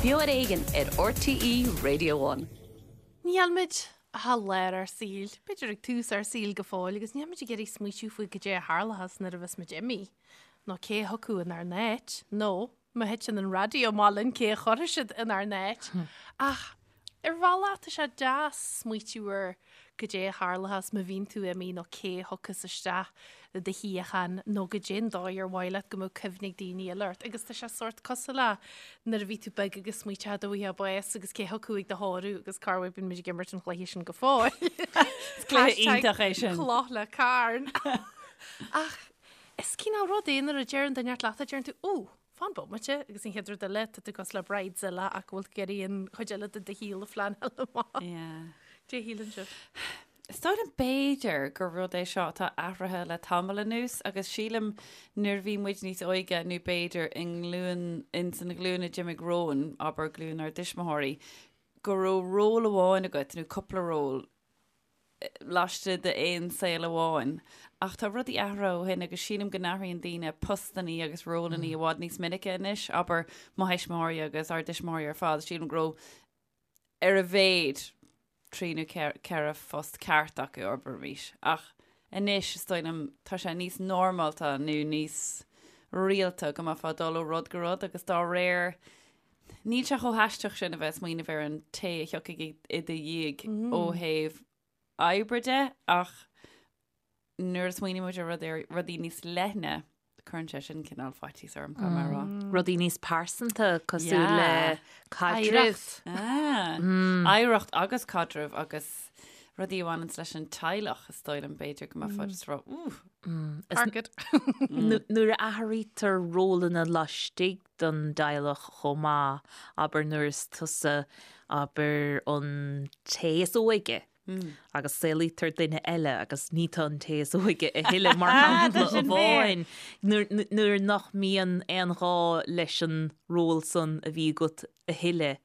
Beo ar Éigean ar RTÉ Radio One. Níl muid ach i lár ár saoil, b'fhéidir ag tús ár saoil go fóill, agus níl muid ag iarraidh smaoitiú faoi goidé a tharlóchas nuair a bheas muid imithe, nó cé a thiocfadh inár n-áit, nó má thiteann an raidió amach linn cé a chuirfidh siad inár n-áit. Ach ar bhealach tá sé deas smaoitiú ar goidé a tharlóchas má bhíonn tú imithe nó cé a thiocfas isteach i do shuíochán nó goidé an dóigh ar mhaith leat go mbeadh cuimhne ag daoine eile ort. Agus tá sé sórt cosúil le nuair a bhí tú beag agus smaoiteofá dá bhfaighfeá bás agus cé thiocfadh ag do thórramh agus cá bhfuil bíonn muid ag imirt an chluiche sin go fóill. Is cluiche iontach é sin. Cloch le carn. Ach is cineál rud é nuair a deireann duine leat a deireann tú, ó, Fan bomaite, agus an chéad rud eile, tá tú cosúil le Bridezilla ach go bhfuil tú ag iarraidh an chuid eile de do shaol a phleanáil amach. Yeah. Cad é a shíleann sibh? Is dóigh liom b'fhéidir gur rud é seo atá athraithe le tamall anuas agus sílim nuair a bhí muid níos óige nó b'fhéidir i nglúin, ins an ghlúin a d'imigh romhainn, abair glúin ár dtuismitheoirí, go raibh ról amháin agat nó cúpla ról laistigh d'aon saol amháin. Ach tá rudaí athraithe ó shin agus sílim go n-athraíonn daoine postannaí agus rólannaí i bhfad níos minice anois, abair mo thuismitheoirí agus ár dtuismitheoirí ar fad, sílim go raibh ar a mhéad trí nó ceithre phost ceart acu, abraimis. Ach anois, is dóigh liom, tá sé níos normálta nó níos rialta go mbeifeá ag dul ó rud go rud agus dá réir Níl sé chomh haisteach sin a bheith ag smaoineamh ar an té a thiocfaidh i do dhiaidh ó thaobh oibre de ach nuair a smaoiníonn muid ar rud ar rudaí níos leithne, cuireann sé sin cineál faitíos orm, caithfidh mé a rá. Rudaí níos pearsanta cosúil le caidreamh. Oidhreacht agus caidreamh agus rudaí a bhaineanns leis an teaghlach is dóigh liom b'fhéidir go mbeifeá just ag rá, ooh. Target. Nuair a athraítear rólanna laistigh den dteaghlach chomh maith, abair nuair is tusa, abair, an té is óige agus saolaítear duine eile agus ní tú an té is óige a thuilleadh mar shampla amháin, nuair nach mbíonn aon ghá leis an ról san a bhí agat a thuilleadh.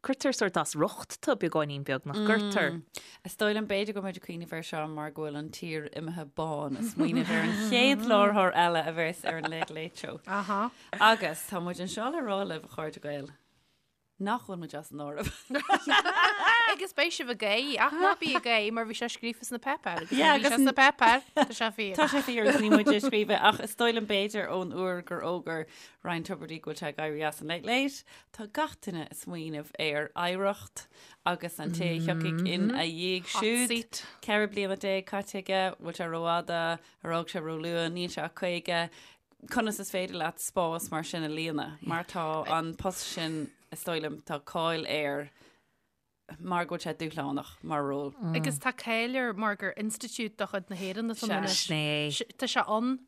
Cuirtear sórt as riocht tú beagáinín beag, nach gcuirtear? Is dóigh liom b'fhéidir go bhfuil muid ag cuimhneamh air seo mar go bhfuil an tír imithe bán ag smaoineamh ar an chéad láithreoir eile a bheas ar an Late Late Show. Aha. Agus tá muid anseo le rá libh, a chairde Gael, nach bhfuil muid as an áireamh. Agus beidh sibh ag gáire, ach ná bí ag gáire mar bhí sé scríofa sna páipéir agus Yeah, bhí sé agus sna páipéir, tá sé fíor. Tá sé fíor agus ní muid a scríobh é ach is dóigh liom b'fhéidir ón uair gur fhógair Ryan Tubridy go bhfuil sé ag éirí as an Late Late, Tá gach duine ag smaoineamh ar oidhreacht agus an té a thiocfaidh ina dhiaidh Hot siúd. seat. 14 bliana caite aige, bhfuil sé rófhada, ar fhág sé róluath, níl sé ach 50. Conas is féidir leat spás mar sin a líonadh? Mar tá an post sin, is dóigh liom, tá cáil air mar go bhfuil sé dúshlánach mar ról. Agus tá cáil air mar gur institiúid de chuid na hÉireann atá ann Sea. anois. Sin é. Tá sé ann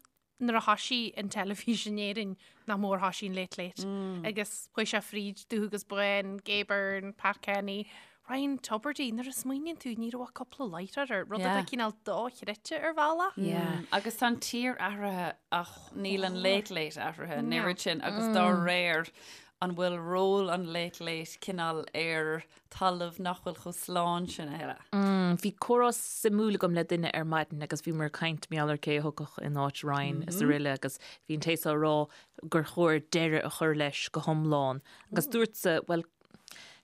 nuair a thoisigh an teilifís in Éirinn nach mór thoisigh an Late Late agus chuaigh sé fríd Dubh agus Bán, Gay Byrne, Pat Kenny, Ryan Tubridy, nuair a smaoiníonn tú ní raibh ach cúpla láithreoir air, rud atá Yeah. cineál dochreidte ar bhealach. Yeah. Agus tá an tír athraithe ach níl an Late Late athraithe an oiread sin agus dá réir an bhfuil ról an Late Late cineál ar talamh nach bhfuil chomh slán sin a thuilleadh. Bhí comhrá suimiúil agam le duine ar maidin agus bhíomar ag caint mar gheall ar cé a thiocfadh in áit Ryan is araile agus bhí an té seo ag rá gur chóir deireadh a chur leis go hiomlán agus dúrtsa, bhuel,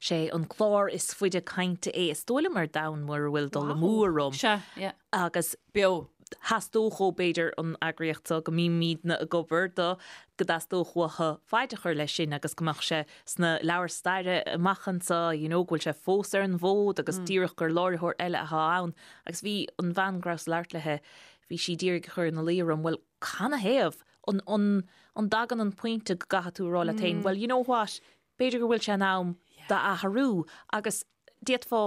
sé an clár is faide cainte é is dóigh liom ar domhan mura bhfuil dul amú orm. Sea, yeah. Agus. Beo. Theastódh ó, b'fhéidir, an eagraíocht seo go mbímidne ag obair do, go dteastódh uathu faid a chur leis sin agus go mbeadh sé sna leabhair staire amach anseo, you know, go bhfuil sé fós ar an bhfód agus díreach gur láithreoir eile atá ann. Agus bhí an bhean go rabhas ag labhairt léi, bhí sí d'iarraidh a chur ina luí orm, bhuel, canathaobh? An, an, an dtagann an pointe go gcaithfidh tú a rá leat féin, well, you know what, b'fhéidir go bhfuil sé in am d'athrú agus d'fhéadfá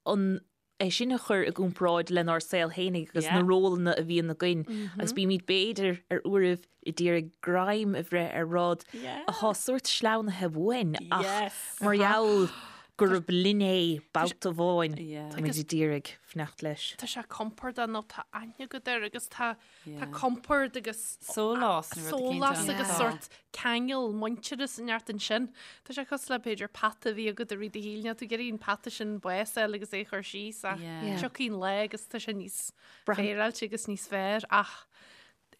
an é sin a chur i gcomparáid lenár saol fhéinig agus na rólanna a bhíonn againn agus bímid b'fhéidir ar uairibh ag iarraidh greim a bhreith ar rud atá sórt sleamhnaithe uainn ach mar gheall gurb linn é babhta amháin táimid ag iarraidh fanacht leis. Tá sé compordach nó tá aithne agat air agus tá Tá compord agus sólás nó rud eicínt sólás ann. agus Tá. sórt ceangal muintearas inteacht ansin. Tá sé cosúil le b'fhéidir peata a bhí agat i rith do shaoil, níl tú ag iarraidh an peata sin bás a fháil agus é a chur síos ach Yeah. Yeah. tiocfaidh an lá agus tá sé níos Braitheann- féaráilte agus níos fearr ach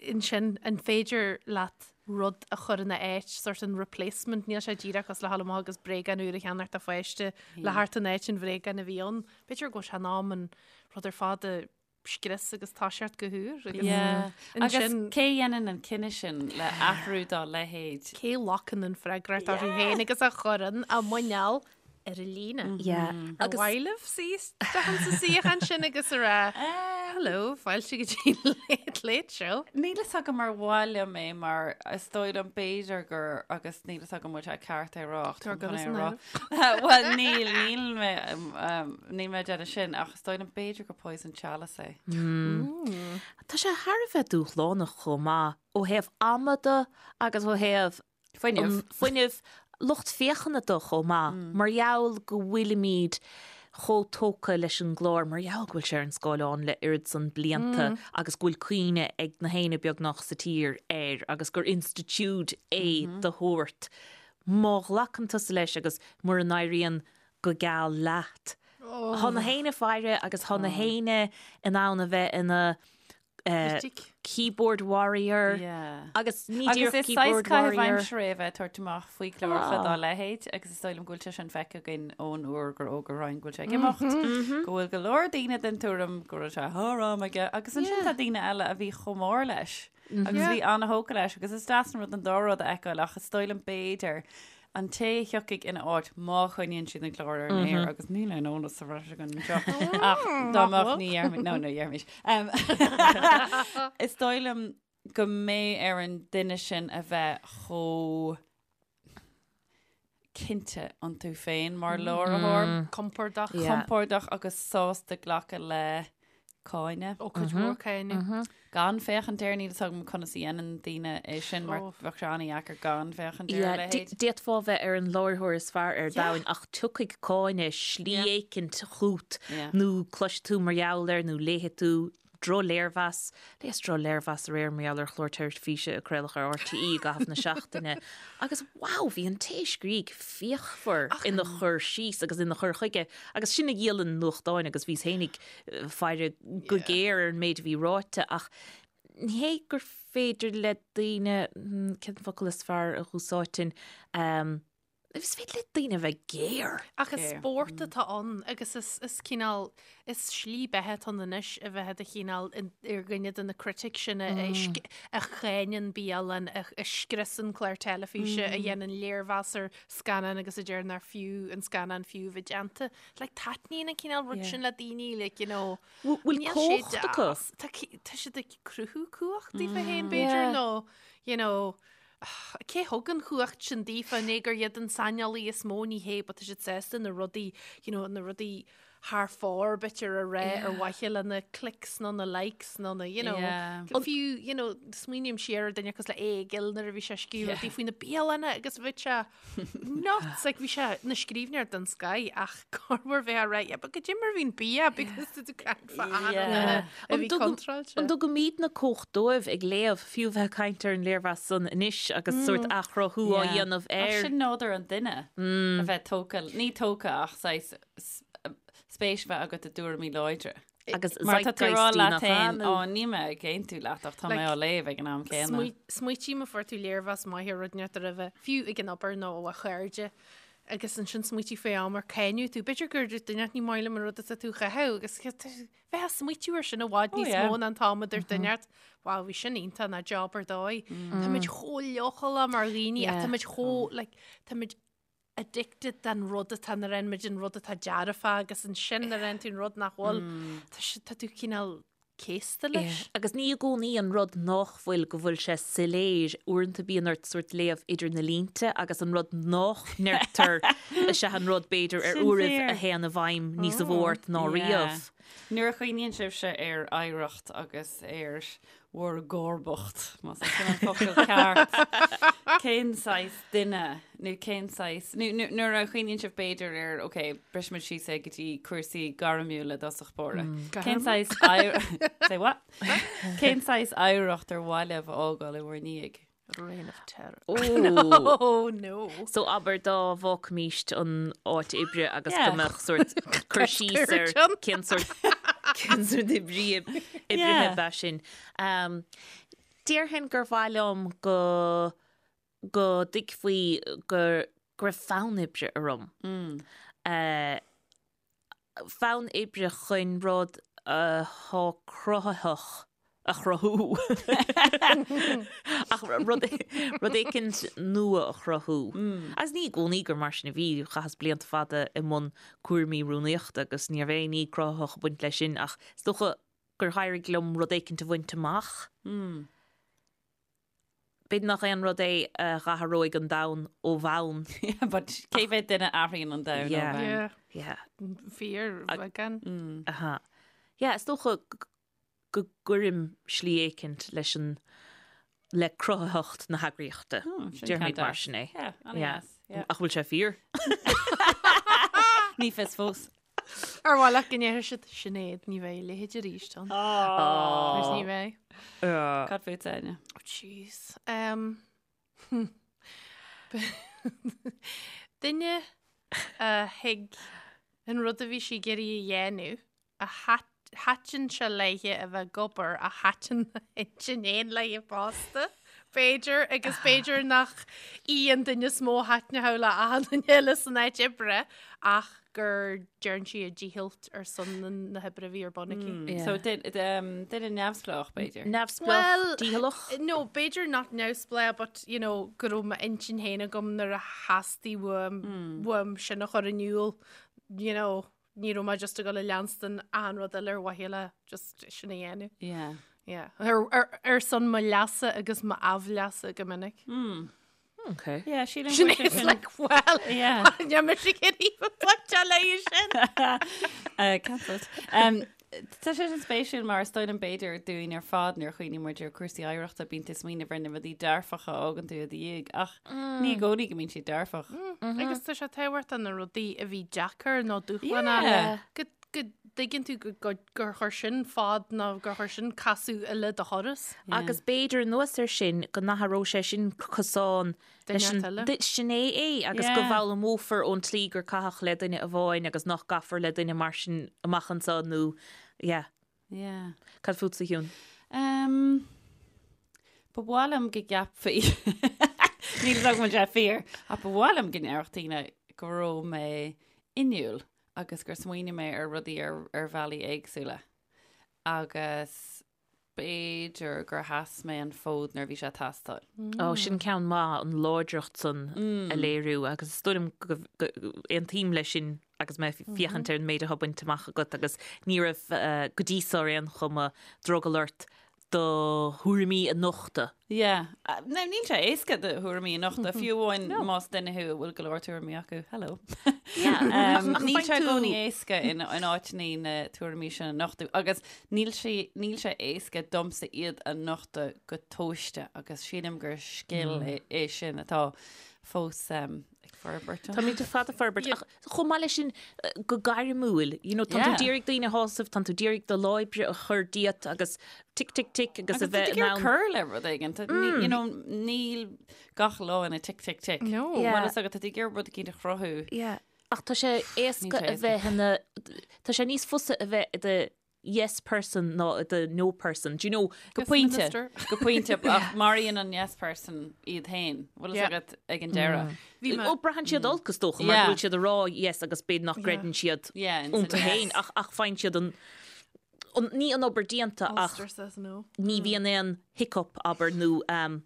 ansin an féidir leat. rud a chur ina áit, sort an replacement, níl sé díreach cosúil le dhul amach agus bréagán úr a cheannacht do pháiste le theacht in áit an bhréagáin a bhí ann. B'fhéidir go bhfuil sé in am an rud ar fad a scrios agus toiseacht go húr agus Yeah. Agus ansin cé a dhéanann an cinneadh sin le athrú dá leithéid? cé a ghlacann an freagracht orthu féin agus a chuireann a muineál ar an líne. Yeah. Ar mhaith libh suí isteach sa suíochán sin agus a rá Hello, fáilte go dtí Late Late Show. Níl fhios agam ar mhaith liom é mar is dóigh liom b'fhéidir gur agus níl fhios agam bhfuil sé ceart é a rá ach Tá táim chun go é a san rá. Bhuel níl, níl mé níl mé ag déanamh sin ach is dóigh liom b'fhéidir gur poison chalice é. Tá sé thar a bheith dúshlánach chomh maith ó thaobh ama de agus ó thaobh Fuinneamh. Fuinneamh, lucht féachana de chomh maith, mar gheall go bhfuilimid chomh tógtha leis an gclár, mar gheall go bhfuil sé ar an scáileán le oiread san blianta agus go bhfuil cuimhne ag na héinne beagnach sa tír air agus gur institiúid é de shórt. Má ghlacann tusa leis agus mura n-éiríonn go geal leat, tá na héinne faire agus tá na héinne in ann a bheith ina Critic. Keyboard warrior. Yeah. Agus ní Agus díreach is saghas keyboard caitheamh warrior. aimsire é a bheith ag tabhairt amach faoi chláracha dá leithéid agus is dóigh liom go bhfuil sé sin feicthe againn ón uair gur fhógair Ryan go bhfuil sé ag imeacht, go bhfuil go leor daoine den tuairim go raibh sé thar am aige agus ansin tá daoine eile a bhí chomh mór leis agus bhí an-thógtha leis agus is deas an rud an dá rud a fheiceáil ach is dóigh liom b'fhéidir An té a thiocfaidh ina áit má choinníonn siad an clár ar an aer agus níl aon eolas sa bhreis againn anseo ach dá mbeadh ní dhéarfaimid, no, no, dhéarfaimis. Is dóigh liom go mbeidh ar an duine sin a bheith chomh cinnte iontu féin mar láithreoir. Compordach. Compordach agus sásta glacadh le cáineadh. Ó, cuid mhór cáineadh. Gan féachaint air, níl fhios agam conas a dhéanann daoine é sin mar bheadh sé an-dheacair gan féachaint ar a leithéid. D'fhéadfá bheith ar an láithreoir is fearr ar domhan ach tiocfaidh cáineadh slí éicint chugat nó cloisfidh tú mar gheall air nó léifidh tú drochléirmheas. Léas drochléirmheas aréir mar gheall ar chlár teilifíse a craoladh ar RTÉ i gcaitheamh na seachtaine agus wow, bhí an té a scrígh fíochmhar ina chur síos agus ina chur chuige agus sin a dhíolann nuachtáin agus bhíos fhéinig faire go géar ar an méid a bhí ráite ach ní hé gur féidir le daoine, cén focal is fearr a dh'úsáidfinn, is féidir le daoine a bheith géar. Ach is spórt atá ann agus is is cineál, is slí beatha atá ann anois a bheith i do chineál ar dhuine de na critics sin a a cháineann bialann, a scriosann clár teilifíse, a dhéanann léirmheas ar scannán agus a deir nár fiú an scannán fiú a bheith déanta. Like, taitníonn an cineál rud sin le daoine, like, you know, Bhfuil níl sé cumhacht acu? deas. Tá tá siad ag cruthú cumhacht daofa féin, b'fhéidir, nó, you know, cé thug an chumhacht sin daofa, ní gur iad an saineolaí is mó, ní hé, but tá siad sásta na rudaí, you know, na rudaí thar fóir, b'fhéidir, a rá ar mhaithe le na clicks nó na likes nó na, you know, fiú, you know, smaoiním siar ar duine cosúil le Aodh Gill nuair a bhí sé ag scríobh rudaí faoi na bialanna agus bhí sé nuts, like bhí sé ina scríbhneoir den scoth ach corruair bheifeá ag rá, yeah, but goidé mar a bhíonn bia because tá tú ag caint fá achan duine a bhí contráilte. An dtugaimidne cumhacht dóibh ag léamh, fiú bheith ag caint ar an léirmheas san anois agus sórt athchruthú á dhéanamh air? Ach sin nádúr an duine, a bheith tógtha, ní tógtha ach saghas spéis a bheith agat i dtuairimí láidre. Agus Mar tá tú ag rá zeitgeist leat nach féin, ea, ó, nó? níl mé ag aontú leat ach tá mé á léamh ag an am céanna. Smaoitigh má fuair tú léirmheas maith ar rud inteacht roimhe, fiú ag an obair nó ó chairde, agus ansin smaoitigh faoi am ar cáineadh tú. B'fhéidir gur dúirt duine ní maith liom an rud atá tú a chaitheamh agus bheith ag smaoitiú air sin i bhfad níos mó ná an t-am a dúirt duine ort, wow, bhí sin iontach ná job ar dóigh. Táimid chomh leochaileach mar dhaoine ach táimid chomh, like, táimid addicted den rud atá nuair a fhaigheann muid an rud atá dearfach agus ansin nuair a fhaigheann tú an rud nach bhfuil, tá sé, tá tú cineál céasta leis. Agus ní i gcónaí an rud nách bhfuil go bhfuil sé soiléir, uaireanta bíonn ort sórt léamh idir na línte agus an rud nách ndeirtear is ea an rud b'fhéidir ar Sin uairibh fíor. a théann i bhfeidhm níosa mhó ort ná riamh. Nuair a chuimhníonn sibhse ar oidhreacht agus ar bhur gcomharbacht, más é sin an focal ceart, cén saghas duine nó cén saghas, nó nuair a chuimhníonn sibh b'fhéidir ar, ok, brisfimid síos é go dtí cúrsaí gairmiúla i dtosach báire. Cén saghas, say what? Cén saghas oidhreacht ar mhaith libh a fhágáil i bhur ndiaidh? Reign of terror. Ó. Oh no. So abair dá bhfágfaimíst an áit oibre agus Yeah. go mbeadh sórt cur síos ar Scoirteann. cén sórt cén sórt oibrí oibrithe Yeah. ab ea sin. Um, Déarfainn gur mhaith liom go go dtuigfí go go raibh fonn oibre orm. Fonn oibre chun rud atá cruthaitheach a chruthú. Ach rud rud éicint nua a chruthú. Agus ní i gcónaí gur mar sin a bhí, chaitheas blianta fada i mbun cúraimí rúnaíochta agus ní raibh aon ní cruthaitheach ag baint leis sin ach is dócha gur éirigh liom rud éicint a bhaint amach. B'fhéidir nach aon rud é a dh'athróidh an domhan ó bhonn. But cé mhéad duine a athraíonn an domhan ó bhonn? Yeah. Yeah. Fíorbheagán. Aha. Yeah, is dócha go gcuirim slí éicint leis an le cruthaitheacht na heagraíochta. Déarfaimid mar sin é. Yeah, an-deas. Yeah. Ach bhfuil sé fíor? Ní fios fós. Ar mhaith leat go ndéarfadh siad Sinéad, ní bheidh a leithéid arís ann. Agus ní bheidh. Cad fút, Áine? Oh, jeez. Um, duine a thuig an rud a bhí sí ag iarraidh a dhéanamh, a thaitin sé léithe a bheith ag obair, a thaitin a hintinn fhéin léithe fosta, b'fhéidir, agus b'fhéidir nach í an duine is mó a thaitneodh le achan duine eile san áit oibre, ach gur dhearn sí a dícheall ar son na hoibre a bhí ar bun aici. Yeah. So duine neamhspleách, b'fhéidir. Neamhspleách, Well, dícheallach. No, b'fhéidir nach neamhspleách, but, you know, go raibh m'intinn féin agam nuair a theastaigh uaim, uaim sin a chur in iúl, you know, Ní raibh mé just ag dul a leanstan achan rud eile ar mhaithe le just sin a dhéanamh. Yeah. Yeah. Ar, ar, ar son mo leasa agus m'aimhleasa go minic. Mm. Okay. Yeah, sílim Sin go bhfuil sé is sin- like, well, Yeah. Níl mise ag iarraidh a bheith léi sin. Uh, cancelled. Um, Tá sé sin spéisiúil mar is dóigh liom b'fhéidir dúinn ar fad nuair a chuimhníonn muid ar cúrsaí oidhreachta bíonn tú ag smaoineamh ar na rudaí dearfacha a fhágann tú i do dhiaidh ach ní i gcónaí go mbíonn siad dearfach. Agus tá sé tábhachtach na rudaí a bhí deacair nó dúshlánach Yeah. go go dtuigeann tú go go gur chuir sin fad nó gur chuir sin casadh eile do thuras. Agus b'fhéidir anuas air sin go n-athródh sé sin cosán Duine eile. Sin é é agus go bhfoghlaimeofar ón tslí gur caitheadh le duine amháin agus nach gcaithfear le duine mar sin amach anseo nó yeah. Yeah. Cad fútsa, a Shiún? Um, ba mhaith liom go gceapfaí Níl a fhios agam an bhfuil sé fíor, ach ba mhaith liom go ndéarfadh daoine go raibh mé inniúil agus gur smaoinigh mé ar rudaí ar, ar bhealaí éagsúla. Agus B'fhéidir gur sheas mé an fód nuair a bhí sé ag teastáil. Ó, sin ceann maith, an láidreacht san a léiriú agus is dóigh liom go aontaím leis sin agus mé ag féachaint ar an méid atá bainte amach agat agus ní raibh go dtí so ar aon chuma drogall ort do thuairimí a nochtadh. Yeah. Now, níl sé éasca do thuairimí a nochtadh, fiú amháin más duine thú a bhfuil go leor tuairimí acu. Hello. Yeah. Um, níl sé i gcónaí éasca in, in áiteanna na tuairimí sin a nochtadh agus níl sé, níl sé éasca domsa iad a nochtadh go tomhaiste agus sílim gur scil é, é sin atá fós um, ag forbairt. Táimid ar fad ag forbairt ach chomh maith leis sin go gairmiúil, you know, tá tú Yeah. d'iarraidh daoine a shásamh, tá tú d'iarraidh do lá oibre a chur díot agus tic tic tic agus a Agus bheith tú in ag ann. cur le rud éigin. Tá- ní- You know, níl gach lá ina tic tic tic. No. Yeah. Bhuel, is agat tá tú ag iarraidh rud éicint a chruthú. Yeah. Ach tá sé éasca Níl sé a bheith ina tá sé níos fusa a bheith i do yes person ná i do no person. Do you know? Go Yes, pointe. minister. Go pointe ach maraíonn an yes person iad féin. Bhfuil Yeah. fhios agat ag an deireadh. Bhí mé- Ó braitheann siad olc is dócha mar Yeah. go bhfuil siad ag rá yes agus b'fhéidir nach gcreideann siad Yeah, ins an iontu yes. féin ach ach faigheann siad an an ní an obair déanta ach Ulster says no. ní bhíonn aon hiccup abair nó um,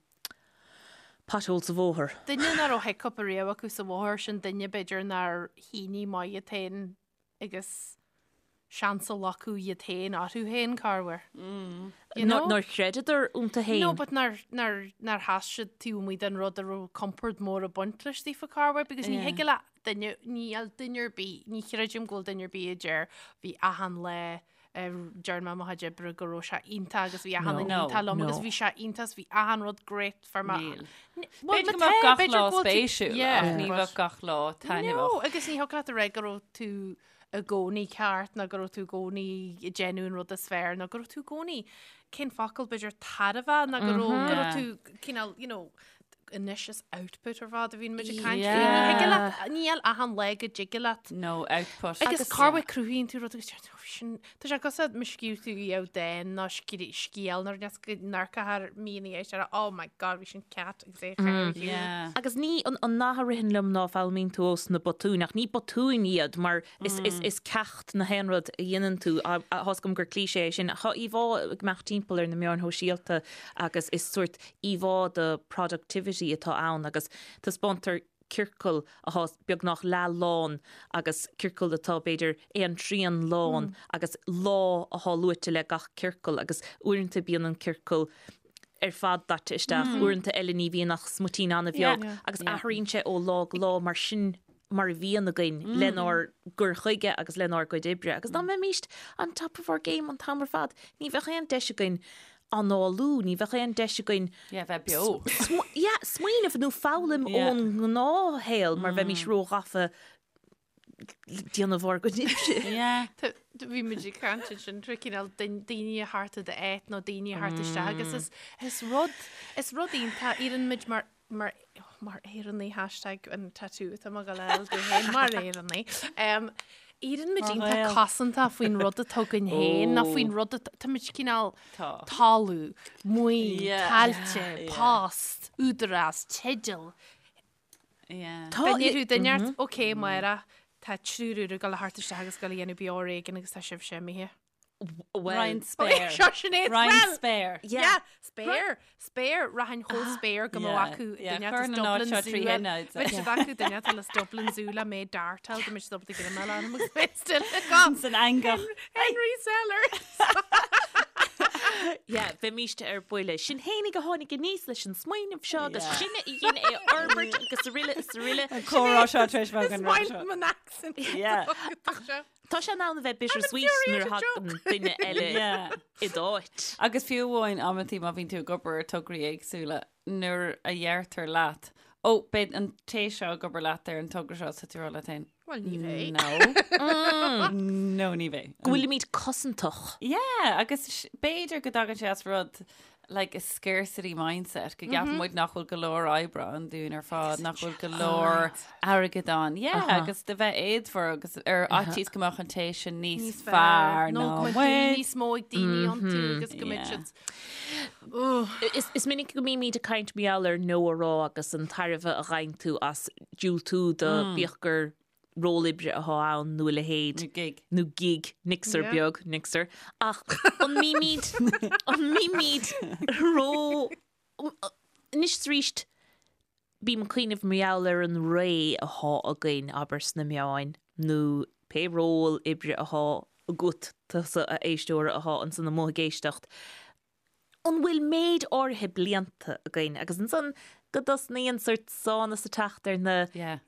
pothole sa bhóthar. Duine nach raibh hiccup ariamh acu sa bhóthar sin duine b'fhéidir nár shínigh maith iad féin agus seans a ghlacadh iad féin orthu féin corruair. You know? Nár chreideadar iontu féin. No, but nár, nár, nár sheas siad taobh amuigh den rud a raibh compord mór ag baint leis daofa corruair because ní Yeah. thig le duine, níl duine ar bith, ní chreidim go bhfuil duine ar bith a deir bhí achan lá a dearn mé mo chuid oibre go raibh sé iontach agus bhí achan No. duine iontach liom agus No. bhí sé iontach agus bhí achan rud great for my Níl. Well, B'fhéidir má go mbeadh tá, gach b'fhéidir lá go bhfuil tú- spéisiúil Yeah, ach ní but- bheadh gach lá No, taitneamhach. agus ní thiocfadh leat a rá go raibh tú i gcónaí ceart nó go raibh tú i gcónaí ag déanamh an rud is fearr nó go raibh tú i gcónaí cén focal b'fhéidir tairbhe nó go raibh go raibh tú cineál you know. anois is output ar fad a bhíonn muid ag caint faoi. Ní thig leat, níl achan lá go dtig leat. No output. Agus corruair cruthaíonn tú rud agus deir tú, "Oh, sin, tá sé cosúil má scríobh tú iamh dán nó scéal nó rud go n-amharcfá air mí ina dhiaidh sin, oh my god, bhí sin cat agus é a chur ar shiúl. Yeah. Agus ní an an nath a ritheann liom ná foghlaimíonn tú ós na botúin, ach ní botúin iad mar is is is ceacht na haon rud a dhéanann tú. Tá fhios agam gur cliché é sin. Tá íomhá ag imeacht timpeall ar na meáin shóisialta agus is sórt íomhá de productivity atá ann agus taispeántar ciorcal atá beagnach leath lán agus ciorcal atá b'fhéidir aon trian lán agus lá atá luaite le gach ciorcal agus uaireanta bíonn an ciorcal ar fad daite isteach, uaireanta eile ní bhíonn ach smuitín an-bheag agus athraíonn sé ó lá go lá mar sin mar a bhíonn againn lenár gcur chuige agus lenár gcuid oibre. Agus dá mbeimíst on top of our game an t-am ar fad, ní bheadh aon deis againn análú, ní bheadh aon deis againn Yeah, bheith beo. yeah, smaoineamh nó foghlaim Yeah. ón ngnáthshaol mar bheimís róghafa le déanamh ár gcuid oibre. Yeah. Tá- Bhí muid ag caint ansin tré cineál daoine a theacht i d'áit nó daoine a theacht isteach agus is, is rud, is rud iontach, éiríonn muid mar mar mar Éireannaigh hashtag an tattoo atá mé ag gabháil a fháil domh féin mar Éireannaigh. Um, Éiríonn muid Mar iontach Ghael. cosanta faoin rud atá againn féin nó faoin rud atá tá muid cineál Tá. talamh, maoin, Yeah. tailte, Yeah. post, údarás, teideal. Yeah. Tá Dá ndéarfadh duine ort, ok, Máire, tá triúr úr ag dul a theacht isteach agus ag dul a dhéanamh Beo Ar Éigean agus tá sibhse imithe. Well, Roinn spéir. Seo Sinéad Roinn well. spéir. Yeah, spéir, spéir, rachainn chomh spéir go mbeadh Yeah, acu yeah, duine chuir as na Dublin náid seo Zoo. trí thine out. Bheadh siad acu duine atá as Dublin Zoo le mé dartáil go mbeidh siad ábalta go mbeadh anam agus mé still agam. San eangach. Henry Sellers. Yeah, bheimíst ar buile. Sinn fhéinig a tháinig aníos leis an smaoineamh seo agus Yeah. sinne a dhein é a fhorbairt agus araile is araile. An comhrá seo tar éis bheith Is againn maith roimhe seo. liom an accent. Yeah. Yeah. Tá sé in ann a bheith bittersweet nuair a thagann duine eile i d'áit. Agus fiú amháin amantaí má bhíonn tú ag obair ar tograí éagsúla, nuair a dheirtear leat, Ó, beidh an té seo ag obair leat ar an togra seo, tá tú ag rá leat féin. Bhuel, ní bheidh. No. No, ní bheidh. Go bhfuilimid cosantach. Yeah, agus b'fhéidir go dtagann sé as rud like a scarcity mindset, go gceapann muid nach bhfuil go leor oibre ann dúinn ar fad, nach bhfuil go leor airgead ann. Yeah, agus de bheith éadmhar agus ar fhaitíos go mbeadh an té sin níos Níos fearr fearr nó ná go mbeadh muid. dúil níos mó ag daoine iontu agus go mbeadh Yeah. siad Ugh. Is, is minic go mbímid ag caint mar gheall ar no a rá agus an tairbhe a gheibheann tú as diúltú do bíodh gur ról oibre atá ann nó a leithéid. Nó gig. Nó gig, nixer Yeah. beag, nixer. Ach an mbímid, an mbímid ró... Anois is arís, bím ag cuimhneamh mar gheall ar an ré atá againn, abair, sna meáin, nó pé ról oibre atá agat, tusa a éisteora atá ansan amuigh ag éisteacht. an bhfuil méid áirithe blianta againn agus ansan go dtosnaíonn sórt sánas ag teacht ar na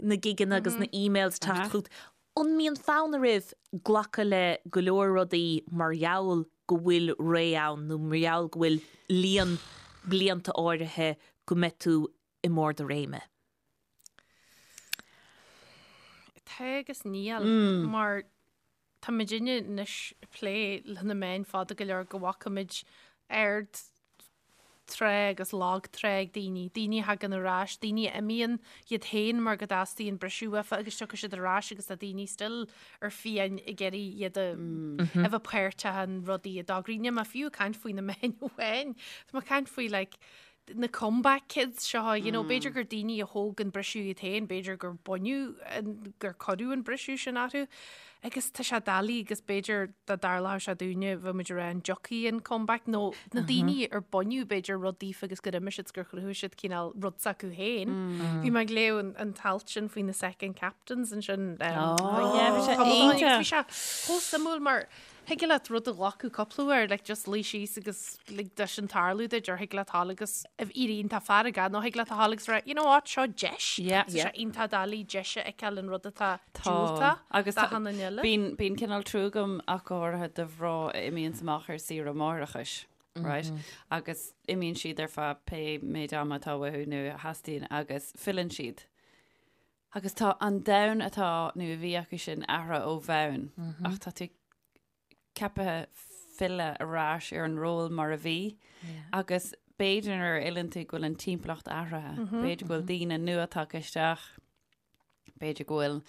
na gigeanna agus na emails ag teacht chugat. An mbíonn fonn oraibh glacadh le go leor rudaí mar gheall go bhfuil ré ann nó mar gheall go bhfuil líon blianta áirithe go mbeidh tú i mbarr do réime? Tá agus níl mar Tá muidinne anois ag plé le na meáin fada go leor go bhfaca muid ard tráth agus lag trá ag daoine, daoine a thagann ar ais, daoine a imíonn iad féin mar go dteastaíonn briseadh uafa agus tiocfaidh siad ar ais agus tá daoine still ar fiáin ag iarraidh iad a a bheith páirteach in rudaí a d'eagraigh. Níl mé fiú ag caint faoi na meáin amháin, tá mé ag caint faoi like na comeback kids seo, you know, b'fhéidir gur daoine a thóg an briseadh iad féin, b'fhéidir gur baineadh, an, gur cuireadh an briseadh sin orthu. Agus tá sé doiligh agus b'fhéidir dá dtarlódh sé dúinne bheadh muid ag rá an dtiocfaidh an comeback nó na daoine ar baineadh b'fhéidir rud daofa agus gur imigh siad 's gur chruthaigh siad cineál rud s'acu féin. Bhí mé ag léamh an, an t-alt sin faoi na second captains ansin. Um, Oh, yeah, bhí sé tamall ó shin agus iontach. Bhí sé chomh suimiúil mar Thig leat rud a ghlacadh cúpla uair, like just luí síos agus lig dó sin tarlú duit, or thig leat a ghabháil agus a bheith iontach feargach, nó thig leat a ghabháil agus rá, you know what, seo deis. Yeah. Tá sé iontach doiligh deis a fheiceáil in rud atá Tá. diúltach Agus tá- d'achan duine eile. Bíonn, bíonn cineál trua agam ach go háirithe do mhná a imíonns amach ar saoire máithreachais, right? Agus imíonn siad ar feadh pé méid ama atá uathu nó a theastaíonn agus filleann siad. Agus tá an domhan atá nó a bhí acu sin athraithe ó bhonn ach tá tú ceaptha filleadh ar ais ar an ról mar a bhí agus b'fhéidir nuair a fhilleann tú go bhfuil an timpeallacht athraithe, b'fhéidir go bhfuil daoine nua tagtha isteach, b'fhéidir go bhfuil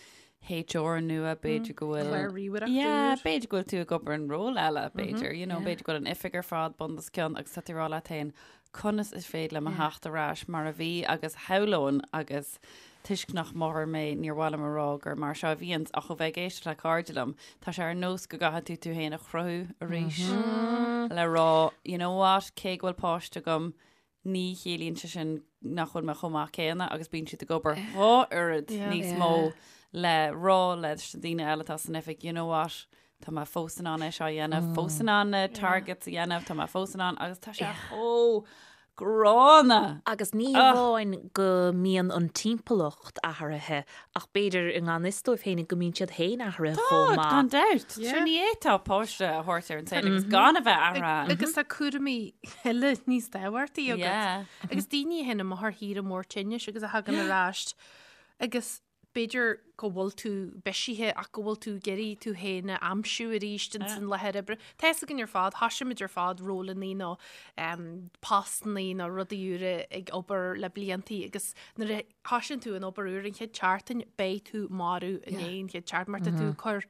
HR nua, b'fhéidir go bhfuil... Clár ríomhaireachta Yeah, úr. b'fhéidir go bhfuil tú ag obair in ról eile, b'fhéidir, you know, b'fhéidir go bhfuil an oifig ar fad bun os cionn agus tá tú ag rá leat féin, conas is féidir liom a theacht ar ais mar a bhí agus shamhlóinn agus toisc nach máthair mé níor mhaith liom a rá gur mar seo a bhíonns ach ó bheith ag éisteacht le cairde liom, tá sé ar nós go gcaithfidh tú tú féin a chruthú arís le rá, you know what, cé go bhfuil páiste agam, ní chiallaíonn sé sin nach bhfuil mé chomh maith céanna agus bíonn siad ag obair dhá oiread níos mó le rá leis na daoine eile atá san oifig, you know what, tá mé fós in ann é seo a dhéanamh, fós in ann na targets a dhéanamh, tá mé fós in ann agus tá sé chomh gránna! Agus ní hamháin go mbíonn an timpeallacht athraithe ach b'fhéidir i ngan fhios dóibh féin go mbíonn siad féin athraithe chomh Tá, maith. gan dabht. Sure ní fhéadfá páiste a thabhairt ar an saol agus gan a bheith athraithe. Agus tá cúraimí eile níos tábhachtaí agat. Agus daoine a théann amach ar shaoire mór tinnis agus a thagann ar ais agus b'fhéidir go bhfuil tú bisithe ach go bhfuil tú ag iarraidh tú féin a aimsiú arís ins an láthair oibre. Tá fhios againn ar fad, thoisigh muid ar fad rólannaí nó postannaí nó rudaí úra ag obair le bliantaí agus nuair a thoisíonn tú an obair úr an chéad tseachtain beidh tú marbh i ndiaidh an chéad tseachtain mar tá tú ag cur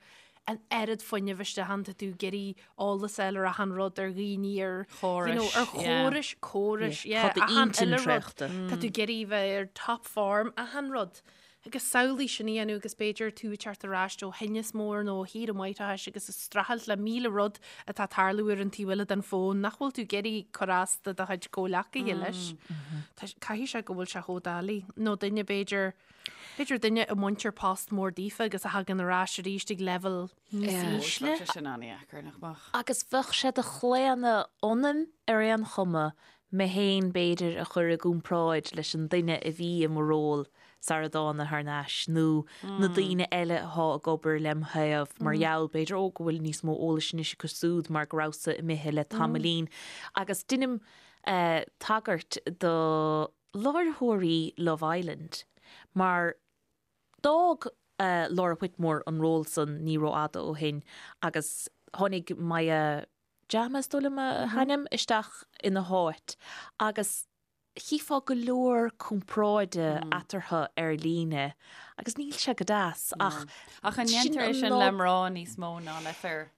an oiread fuinnimh isteach ann, tá tú ag iarraidh eolas a fháil ar achan rud, ar dhaoine, ar you know, ar chórais, córais, yeah, Tá achan d'intinn uile rud. traochta. Tá tú ag iarraidh bheith ar top form, achan rud. Agus samhlaigh sin a dhéanamh agus b'fhéidir tú ag teacht ar ais ó thinneas mór nó ó shaoire máithreachais agus ag streachailt le 1,000 rud atá ag tarlú ar an taobh eile den fón nach bhfuil tú ag iarraidh cur as do do chuid comhleacaithe leis. Tá- Caithfidh sé go bhfuil sé chomh doiligh. Nó duine b'fhéidir, b'fhéidir duine a mbaintear post mór daofa agus a thagann ar ais arís ag leibhéal níos ísle. Bheadh sé sin an-dheacair, nach mbeadh? Agus bheadh sé de chlaonadh ionam ar aon chuma mé féin b'fhéidir a chur i gcomparáid leis an duine a bhí i mo ról sara dtána thar n-ais nó na daoine eile athá ag obair lem thaobh mar gheall b'fhéidir ó go bhfuil níos mó eolais anois acu súd mar go rabhas-sa imithe le tamaillín. Agus deinim tagairt do láithreoirí Love Island mar D'fhág Laura Whitmore an ról san ní rófhada ó shin agus tháinig Maya Jama, is dóigh liom a hainm, isteach ina háit agus chífeá go leor comparáide eatarthu ar líne agus níl sé go deas ach Ach an ndéantar é sin le mná níos mó ná le fir?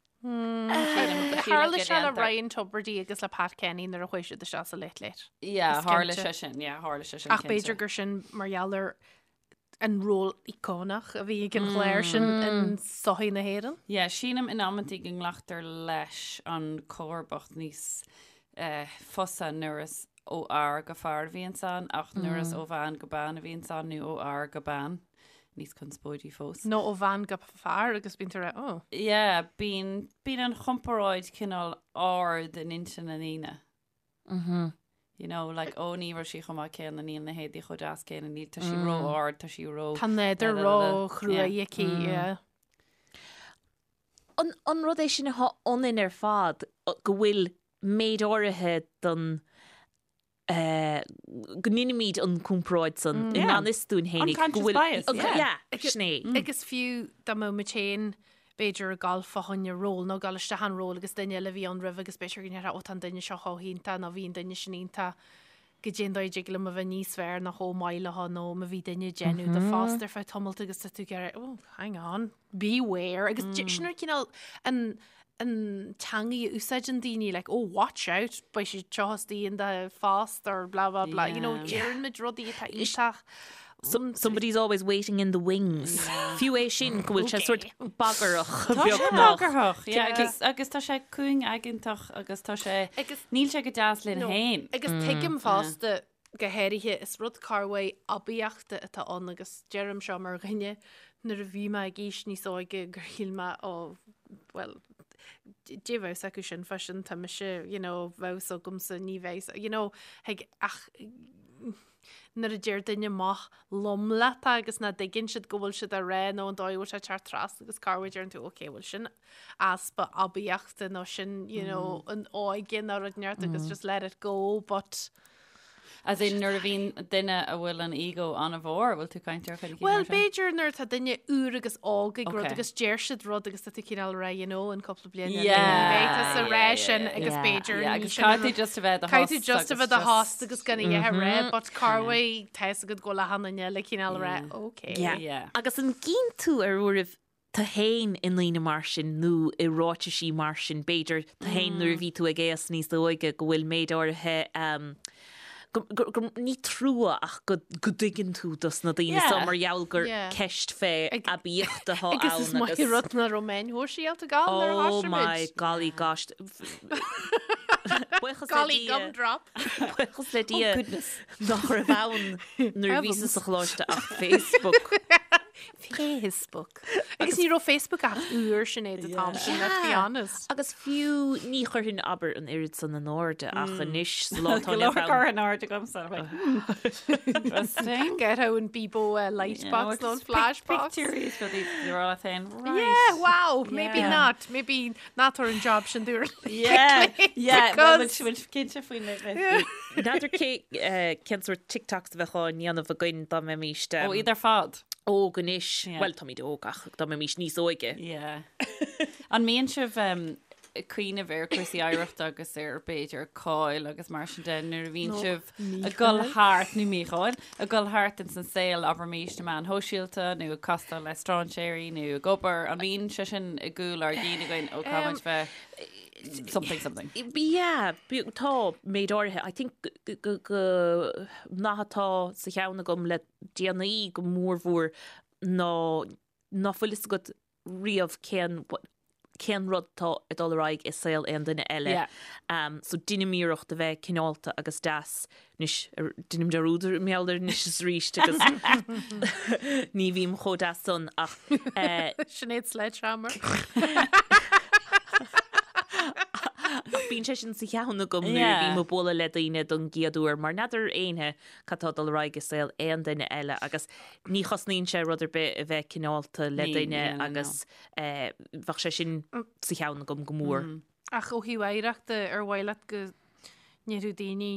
Tharla sé le Ryan Tubridy agus le Pat Kenny nuair a chuaigh siad isteach sa Late Late. Yeah, tharla sé sin, yeah, tharla sé sin. Ach b'fhéidir gur sin mar gheall ar an ról íocónach a bhí ag an chlár sin in sochaí na hÉireann. Yeah, sílim in amantaí go nglactar leis an comharbacht níos eh, fusa nuair is ó fhear go fear a bhíonns ann, ach nuair is ó bhean go bean a bhíonns ann nó ó fhear go bean, níos conspóidí fós. Nó ó bhean go fear agus bíonn tú ag rá, oh. Yeah, bíonn, bíonn an chomparáid cineál ard in intinn na ndaoine. You know, like, ó ní raibh sí chomh maith céanna, níl na héadaí chomh deas céanna, níl, tá sí ró-ard, tá sí ró... Tá nádúr ró-chruaidh aici, yeah. An, an rud é sin atá ionainn ar fad, go bhfuil méid áirithe den, eh, go ndeinimid an comparáid san i ngan fhios dúinn fhéinig, go Unconscious bhfuil, bias, yeah. yeah, sin é. Agus fiú dá mbeadh muid féin b'fhéidir ag gabháil fá choinne ról nó ag gabháil isteach in ról agus duine eile a bhí ann roimhe agus b'fhéidir go ndéarfá ó tá an duine seo chomh hiontach nó bhí an duine sin iontach goidé an dóigh a dtig liom a bheith níos fearr nó chomh maith leo nó má bhí duine ag déanamh do phost ar feadh tamalt agus tá tú ag iarraidh oh hang on beware agus sin an cineál an an teangaidh a úsáideann daoine like oh watch out beidh siad seo istigh in do phost or blah blah blah you know deireann muid rudaí atá iontach Somebody's always waiting in the wings. Fiú é sin go bhfuil sé sort bagarach Tá sé beagnach. bagarthach, yeah, agus, agus tá sé cúngaigeantach agus tá sé, Agus- níl sé go deas linn No. féin. Agus tuigim fosta go háirithe is rud corrmhaith aibíochta atá ann agus deirim seo mar dhuine nuair a bhí mé ag aois níos óige gur shíl mé ó bhuel dé bheadh acu sin fá sin tá mise you know bheadh agamsa ní bheidh you know ag ach nuair a deir duine maith lom leat agus nach dtuigeann siad go bhfuil siad á rá nó an dóigh a bhfuil sé ag teacht trasna agus corruair deireann tú ok bhuel sin easpa aibíochta nó sin you know an óige nó rud inteacht agus just let it go but. As in nuair a bhíonn duine a bhfuil an ego an-mhór, bhfuil tú caint ar chuid Well, b'fhéidir nuair atá duine úr agus óg ag rud agus deir siad rud agus tá tú cineál ag rá, you know, in cúpla bliain eile ní bheidh tú sa ré sin agus b'fhéidir Yeah, agus caithfidh tú just a bheith do Caithfidh tú just a bheith do thost agus gan a dhath a rá, but corruair tá fhios agat go bhfuil achan duine eile cineál ag rá, okay. Yeah. Agus an gcíonn tú ar uairibh tú féin i ndaoine mar sin nó i ráitisí mar sin, b'fhéidir, tú féin nuair a bhí tú ag aos níos óige go bhfuil méid áirithe go, go, go, ní trua ach go, go dtuigeann tú dos na daoine so mar gheall gur ceist fé aibíocht atá ann agus. Agus is maith an rud nach raibh meáin shóisialta ann nuair a Oh thosaigh my muid. golly gosh. Buíochas le Golly Dia. gumdrop. Buíochas le Dia nach raibh ann nuair a bhíos sa choláiste ach Facebook. Facebook. Agus ní raibh Facebook ach úr Sinéad an t-am sin, let's be honest. Agus fiú ní chuirfinn abair an oiread san in airde ach anois sa lá atá Go inniu leor ann. curtha in airde agamsa. like, Interesting. Get out an Bebo uh, light box nó an flash box. Pictúirí is rudaí rá féin. Right. Yeah, wow, maybe Yeah. not. Maybe not ar an job sin dúr. Yeah, yeah, well, Because- bhfuil cinnte faoin N'fheadar cé cén sórt TikToks a bheadh á ndéanamh againn dá mbeimis Ó, iad ar fad. óg anois. Yeah. Bhuel, táimid óg ach dá mbeimis níos óige. Yeah. An mbíonn sibh ag cuimhneamh ar cúrsaí oidhreachta agus ar b'fhéidir cáil agus mar sin de nuair a bhíonn sibh ag dul thart nó mícháil, ag dul thart ins an saol abraimis na meáin shóisialta nó ag castáil le strainséirí nó ag obair, an mbíonn sé sin i gcúl ár gcinn againn ó caithfimid bheith something something. Yeah, tá méid áirithe. I think go go nath atá sa cheann agam le déanaí go mórmhór ná ná fuil fhios agat riamh cén cén rud atá ag dul ar aghaidh i saol aon duine eile. Yeah. Um, so deinim iarracht a bheith cineálta agus deas anois deinim dearúd mar gheall air anois is arís agus ní bhím chomh deas san ach eh, Sinéad Sledgehammer. Ach bíonn sé sin sa cheann agam nuair a Yeah. bhím ag bualadh le daoine don gcéad uair mar n'fheadar éinne cad tá ag dul ar aghaidh i saol aon duine eile agus ní chosnaíonn sé rud ar bith a bheith cineálta le Ní, duine no, no, no. agus eh, bheadh sé sin sa cheann agam go mór. Ach ó thaobh oidhreachta ar mhaith leat go ndéarfadh daoine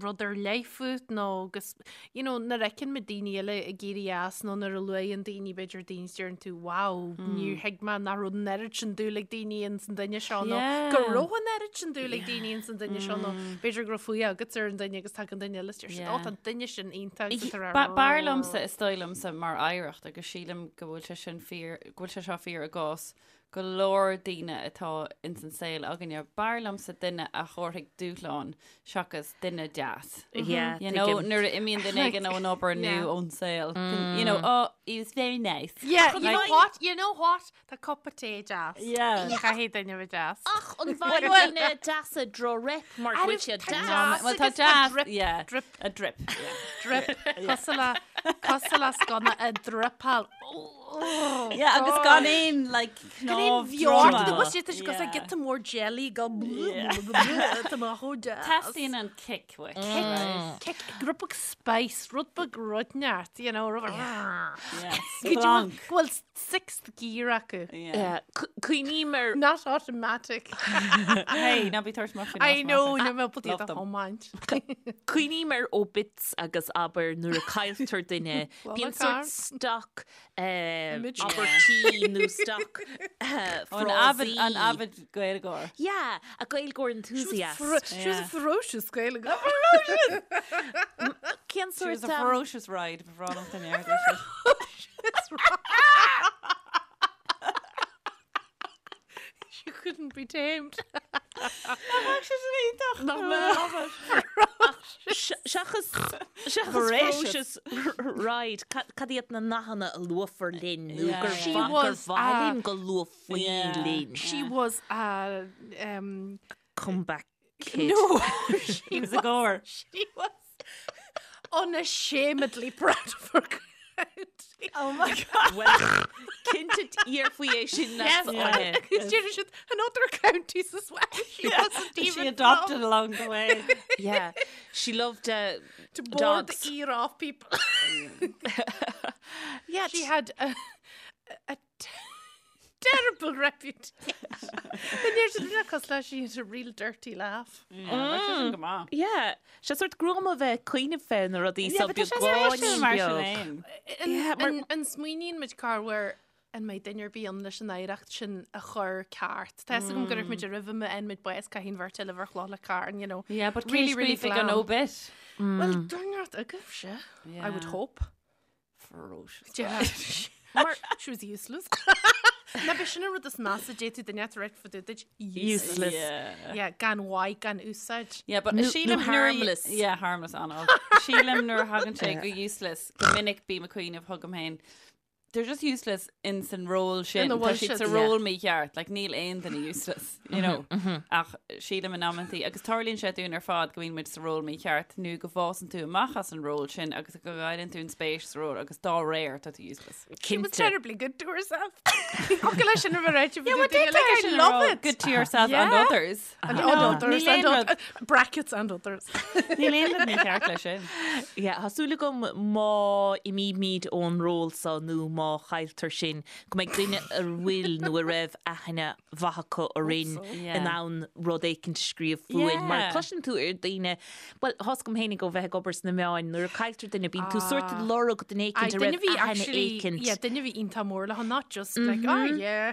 rud ar leith fút nó agus you know nuair a fheiceann muid daoine eile ag éirí as nó nuair a luaigheann daoine b'fhéidir daoine is deireann tú wow níor thuig mé nach raibh an oiread sin dúil ag daoine ins an duine seo nó go Yeah. raibh an oiread sin dúil ag daoine ins an duine seo nó b'fhéidir go raibh fuath agat ar an duine agus tagann duine eile is deir siad Yeah. ó tá an duine sin iontach agus tá Ba- B'fhearr liomsa is dóigh liomsa mar oidhreacht agus sílim go bhfuil sé sin fíor go bhfuil sé seo fíor i gcás go leor daoine atá ins an saol againne. B'fhearr liomsa duine a thabharfaidh dúshlán seachas duine deas. Yeah, You know, tuigim. nuair a imíonn duine éigin ón obair nó Yeah. ón saol. You know, oh, he was very nice. Yeah, you know Like- what? You know what? Tá cupa tae deas. Yeah. Ní chaithfidh duine bheith deas. Ach an bhfaigheann duine deasa droch-rep mar go bhfuil siad Tá deas. deas Well, tá agus tá deas, drip, yeah. drip. A drip. Yeah. Drip. Cosúil le cosúil le sconna a dripeáil. Oh, Yeah, agus gan aon like Gan aon cnámh bheart droma. de bhus tá sé cosúil le Yeah. giota mór jelly go Tá mé chomh deas. Teastaíonn an kick uait. Kick, kick, rud beag spice, rud beag rud neart, you know, rud Yeah. Go dtí Splanc. go bhfuil sixth gear acu. Yeah. Yeah, Cuimhním ar Not automatic. Hey, ná bí tabhairt amach faoin I know, automatic. níl mé ábalta Love iad a them. thiomáint. Cuimhním ar obits agus abair nuair a cailltear duine. Bíonn car. sort stock eh, Image. abairtí nó stock eh, An avid, an frásaí. avid Gaeilgeoir. Yeah, a Gaeilgeoir enthusiast. She was a ferocious Gaeilgeoir. Cén She was sort a um, ferocious ride before all of the air. She couldn't be tamed. Seachas seachas Voracious. ferocious ride cad iad na nathanna a luafar linn nó Yeah. gur She mhaith- gur was, mhaith uh, linn go luafaí Yeah. linn. She was a um Comeback kid. no, she She was a goer. She was unashamedly proud of her county. Oh my God. Well, cinnte iarfaoi é sin Yes, yeah. because she should and other counties as well. She wasn't even She adopted from along the way. Yeah, she loved uh, to bore dogs. the ear off people. Yeah, She had a, a t- Terrible reputation. Then you're just not cos leis she had a real dirty laugh. Yeah, go maith. Yeah, sé sort gruama bheith cuimhneamh fé na rudaí Yeah, so but tá sé beagáinín mar sin beag. féin. Yeah, mar- An smaoiníonn muid corruair an mbeidh duine ar bith ann leis an oidhreacht sin a chur ceart. Tá fhios agam go raibh muid roimh má fhaigheann muid bás caithfidh an bheirt eile bheith chloch le carn, you know. Yeah, but Really, really, really really glan. glam. An obit. Well, duine agaibhse, I would Yeah. hope. Ferocious. Yeah. Mar she was useless. Na b'é sin an rud is measa d'fhéadfadh duine a rá fá dtaobh duit Useless. Yeah. Yeah, gan mhaith, gan úsáid. Yeah, but Nó- sílim nó nuair a- harmless. Yeah, harmless an Sílim nuair a thagann sé go useless go minic bím ag cuimhneamh chugam féin. They're just useless in san ról sin. Ina Tá bhfuil siad siad, sa yeah. ról mícheart, like níl aon duine useless, you know. Ach sílim in amantaí agus tarlaíonn sé dúinn ar fad go mbíonn muid sa ról mícheart nó go bhfásann tú amach as an ról sin agus go gcailleann tú an spéis sa ról agus dá réir tá tú useless. She was Cinnte. terribly good to herself. Go leis sin a bheith Yeah, well, like, I love it. Good to yourself and Yeah. others. And You know, others, níl aon and rud- brackets and others. Níl aon rud mícheart leis sin. Yeah, tá súil agam má imímid ón ról so nó má chailltear sinn go mbeidh duine a bhfuil nó a raibh aithne mhaith acu orainn Yeah. in ann rud éicint a scríobh fúinn. Mar Yeah. cloiseann tú ar daoine, well, tá fhios agam féinig ó bheith ag obair sna meáin, nuair a cailltear duine bíonn tú sort ag lorg duine éicint a duine raibh bhí aithne actually, éicint. yeah, duine bhí iontach mór le not just like, oh yeah.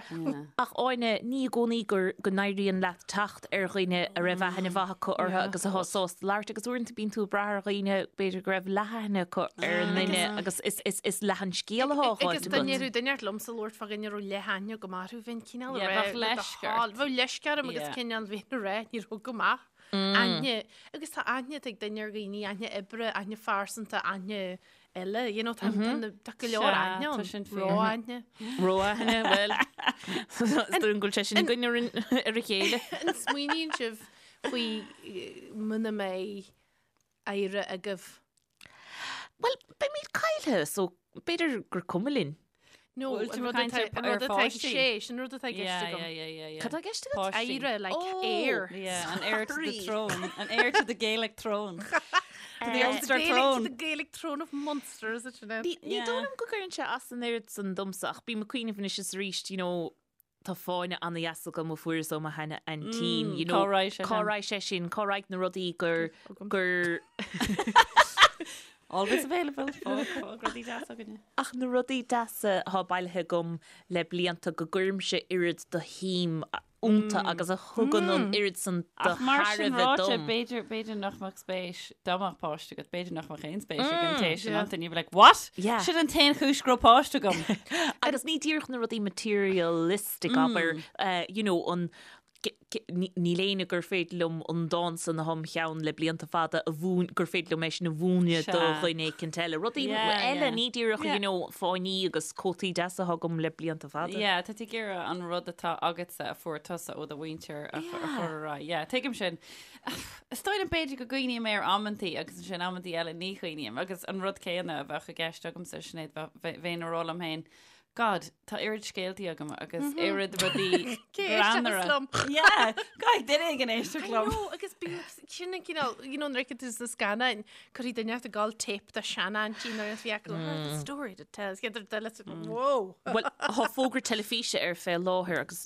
Ach Áine, ní i gcónaí gur go n-éiríonn leat teacht ar dhaoine a raibh aithne mhaith acu orthu agus atá sásta labhairt agus uaireanta bíonn tú ag brath ar dhaoine b'fhéidir go raibh leathaithne acu ar an nduine agus is, is, is leath an scéal atá á Agus fháilt duine agat. raibh duine ort liomsa labhairt fá dhuine a raibh leathaithne go maith orthu, bheinn cineál Yeah, a rá bheadh le do leisce thoil. ort. Bheadh leisce orm agus Yeah. cineál bheinn a rá, ní raibh go maith. Aithne, agus tá aithne ag duine ar dhaoine, aithne oibre, aithne phearsanta, aithne eile, you know, tá tá na- tá go leor Sea, aithne tá ann. sin fíor. Ró-aithne. Ró-aithne, bhuel, is dóigh go bhfuil sé sin againn ar an- ar a chéile. An smaoiníonn sibh faoi eh, muna mbeidh oidhre agaibh? Bhuel, beimid caillte, so b'fhéidir gur cuma linn. No, Bhfuil an tú rud ag caint atá ar- an rud ar atá ag pháistí? sé, sin rud atá i gceist Yeah, agam. yeah, yeah, yeah, yeah. Cad tá i gceist agat? Páistí. Oidhre, like Oh. heir. Yeah, an heir to the Sorry. throne. An heir to the Gaelic throne. To the The Ulster Gaelic, to throne. the Gaelic throne of Munster, is it sin? Ní Yeah. dóigh liom go gcuireann sé as an oiread san domsa ach bím ag cuimhneamh anois is arís, you know, tá fáinne ana-dheas agam a fuaireas ó mo sheana aintín, you know, cá raibh sé cá sin? raibh sé sin, cá raibh na rudaí gur gur Always available. Fág fág rudaí deasa againne. ach na rudaí deasa atá bailithe agam le blianta go gcuirimse oiread de shuim iontu agus a thugann an oiread san de Ach mar sin thairbhe ráite, dom. b'fhéidir b'fhéidir nach mbeadh spéis dá mbeadh páiste agat, b'fhéidir nach mbeadh aon spéis ag an té sin Yeah. iontu, and you'd be like, what? Yeah. Sin an t-aon chúis go raibh páiste agam. Agus ní díreach na rudaí materialistic abair, eh, you know, an Níl éinne gur féidir liom an dán san atá im cheann le blianta fada a mhúin, gur féidir liom é sin a mhúineadh do dhuine éicint eile. Rudaí eile, ní díreach, you know, fáinní agus cótaí deasa atá agam le blianta fada. Yeah, tá tú ag iarraidh an rud atá agatsa a fuair tusa ó do mhuintir a chur ar aghaidh. Yeah, tuigim sin. Is dóigh liom b'fhéidir go gcuimhním air amantaí agus ansin amantaí eile ní chuimhním agus an rud céanna a bheadh i gceist agamsa, Sinéad, bheinn ag rá liom féin, God, tá oiread scéaltaí agam agus oiread rudaí greannmhara. Liom. Yeah, caithfidh duine éigin éisteacht I liom. know, agus bíonn sin an cineál, you know, nuair a fheiceann tú sna scannáin, cuirfidh duine ag gabháil tape de seanaintín nuair a bhí acu, oh, the story to tell. Is iad ar duine, whoa. Bhuel, tá fógra teilifíse ar fé láthair agus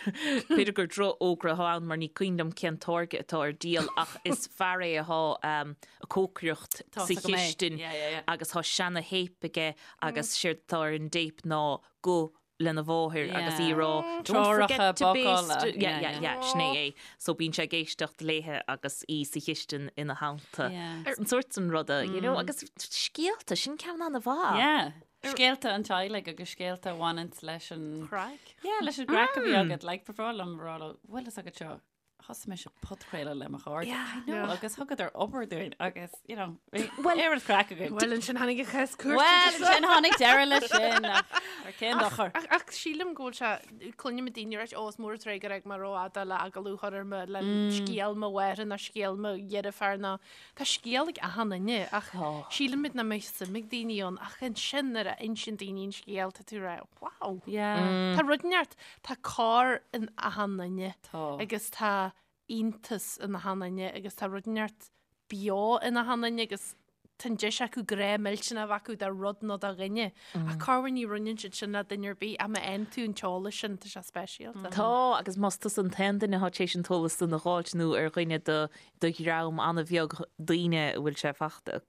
b'fhéidir gur drochfhógra atá ann mar ní cuimhin liom cén táirge atá ar díol ach is fear é atá ag cócaireacht Tá sa fhios agam é. chistin Yeah, yeah, yeah. agus tá seana-théip aige agus séard atá ar an dtéip ná guth lena mháthair agus í ag rá "Don't Treoracha forget to bácála. baste." Yeah, Yeah, yeah, yeah. yeah, sin é é. So bíonn sé ag éisteacht léithe agus í sa chistin ina theannta. Yeah. An sórt san ruda, you know, agus scéalta, sin ceann an-mhaith. Yeah. Scéalta an teaghlaigh agus scéalta a bhaineanns leis an Craic. Yeah, leis an gcraic a bhí agat, like, ba bhreá liom a rá leo, bhfuil fhios agat seo, Thosaigh mise podchraoladh le mo chairde. Yeah. I know, Yeah. agus thugadar obair dúinn agus, you know, bhí oiread craic againn. Bhuel, ansin tháinig an chás cúirte. Well, ansin tháinig deireadh leis sin, ach ar cén dochar. Ach, ach sílim go bhfuil sé, cluinim daoine ag rá, ó, is mór an truaighe gur fhág mé rófhada le agallamh a chur orm le scéal mo mháthar nó scéal mo dheirféar nó tá scéal ag achan duine ach sílimid nach mbeidh suim ag daoine ann ach ansin nuair a insíonn daoine an scéal tá tú ag rá, wow. Yeah. Tá rud inteacht, tá cor in achan duine. Tá. Agus tá iontas in achan duine agus tá rud inteacht beo in achan duine agus tá an deis acu grá millteanach a bheith acu do rud nó do dhuine. Ach corruair ní roinneann siad sin le duine ar bith ach má fhaigheann tú an t-eolas sin tá sé speisialta. Tá, agus más tusa an t-aon duine atá tar éis an t-eolas san a dh'fháilt nó ar dhuine de do dhream an-bheag daoine a bhfuil sé fachta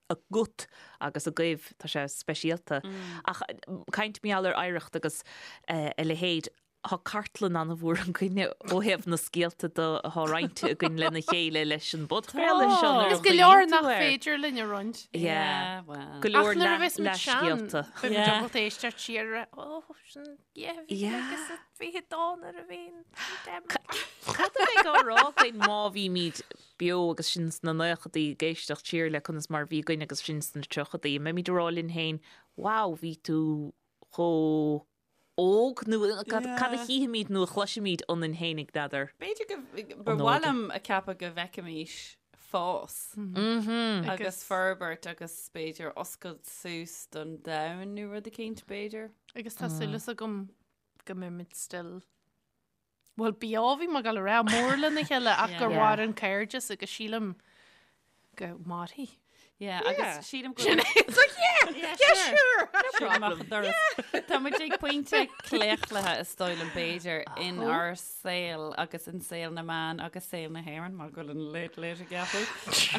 agat agus agaibh, tá sé speisialta. Ach caint mar gheall ar oidhreacht agus a leithéid, Tá cartlann an-mhór againne ó thaobh na scéalta de atá roinnte againn lena chéile leis an bpodchraoladh seo nuair a Agus go leor nach féidir linn a roinnt. Yeah, well. Go leor Ach nuair a bheas muid sean, leathscéalta. beidh muid ábalta éisteacht siar ar ó, sin, yeah, bhí Yeah. agus 22 nuair a bhí an Cad a bheidh á rá againn má bhímid beo agus sinn sna naochadaí ag éisteacht siar le conas mar a bhí againn agus sinn sna tríochadaí? An mbeimid ag rá linn féin, wow, bhí tú chomh óg nó cad a chífimid nó a chloisfimid ionainn féinig, n'fheadar. B'fhéidir go, ba mhaith liom a ceapadh go bhfeicfimis fás agus forbairt agus b'fhéidir oscailt suas don domhan nó rud eicínt b'fhéidir. Agus tá súil agam go mbeimid still Bhuel, beo bhí mé ag dul a rá mór lena chéile ach gur mhair an cairdeas agus sílim go mairfidh. Yeah, agus sílim go Sin é. It's like, yeah, yeah, sure. Sure. Amach an doras. Tá muid ag pointe claochlaithe is dóigh liom b'fhéidir in ár saol agus in saol na meán agus saol na hÉireann mar go bhfuil an Late Late ag athrú.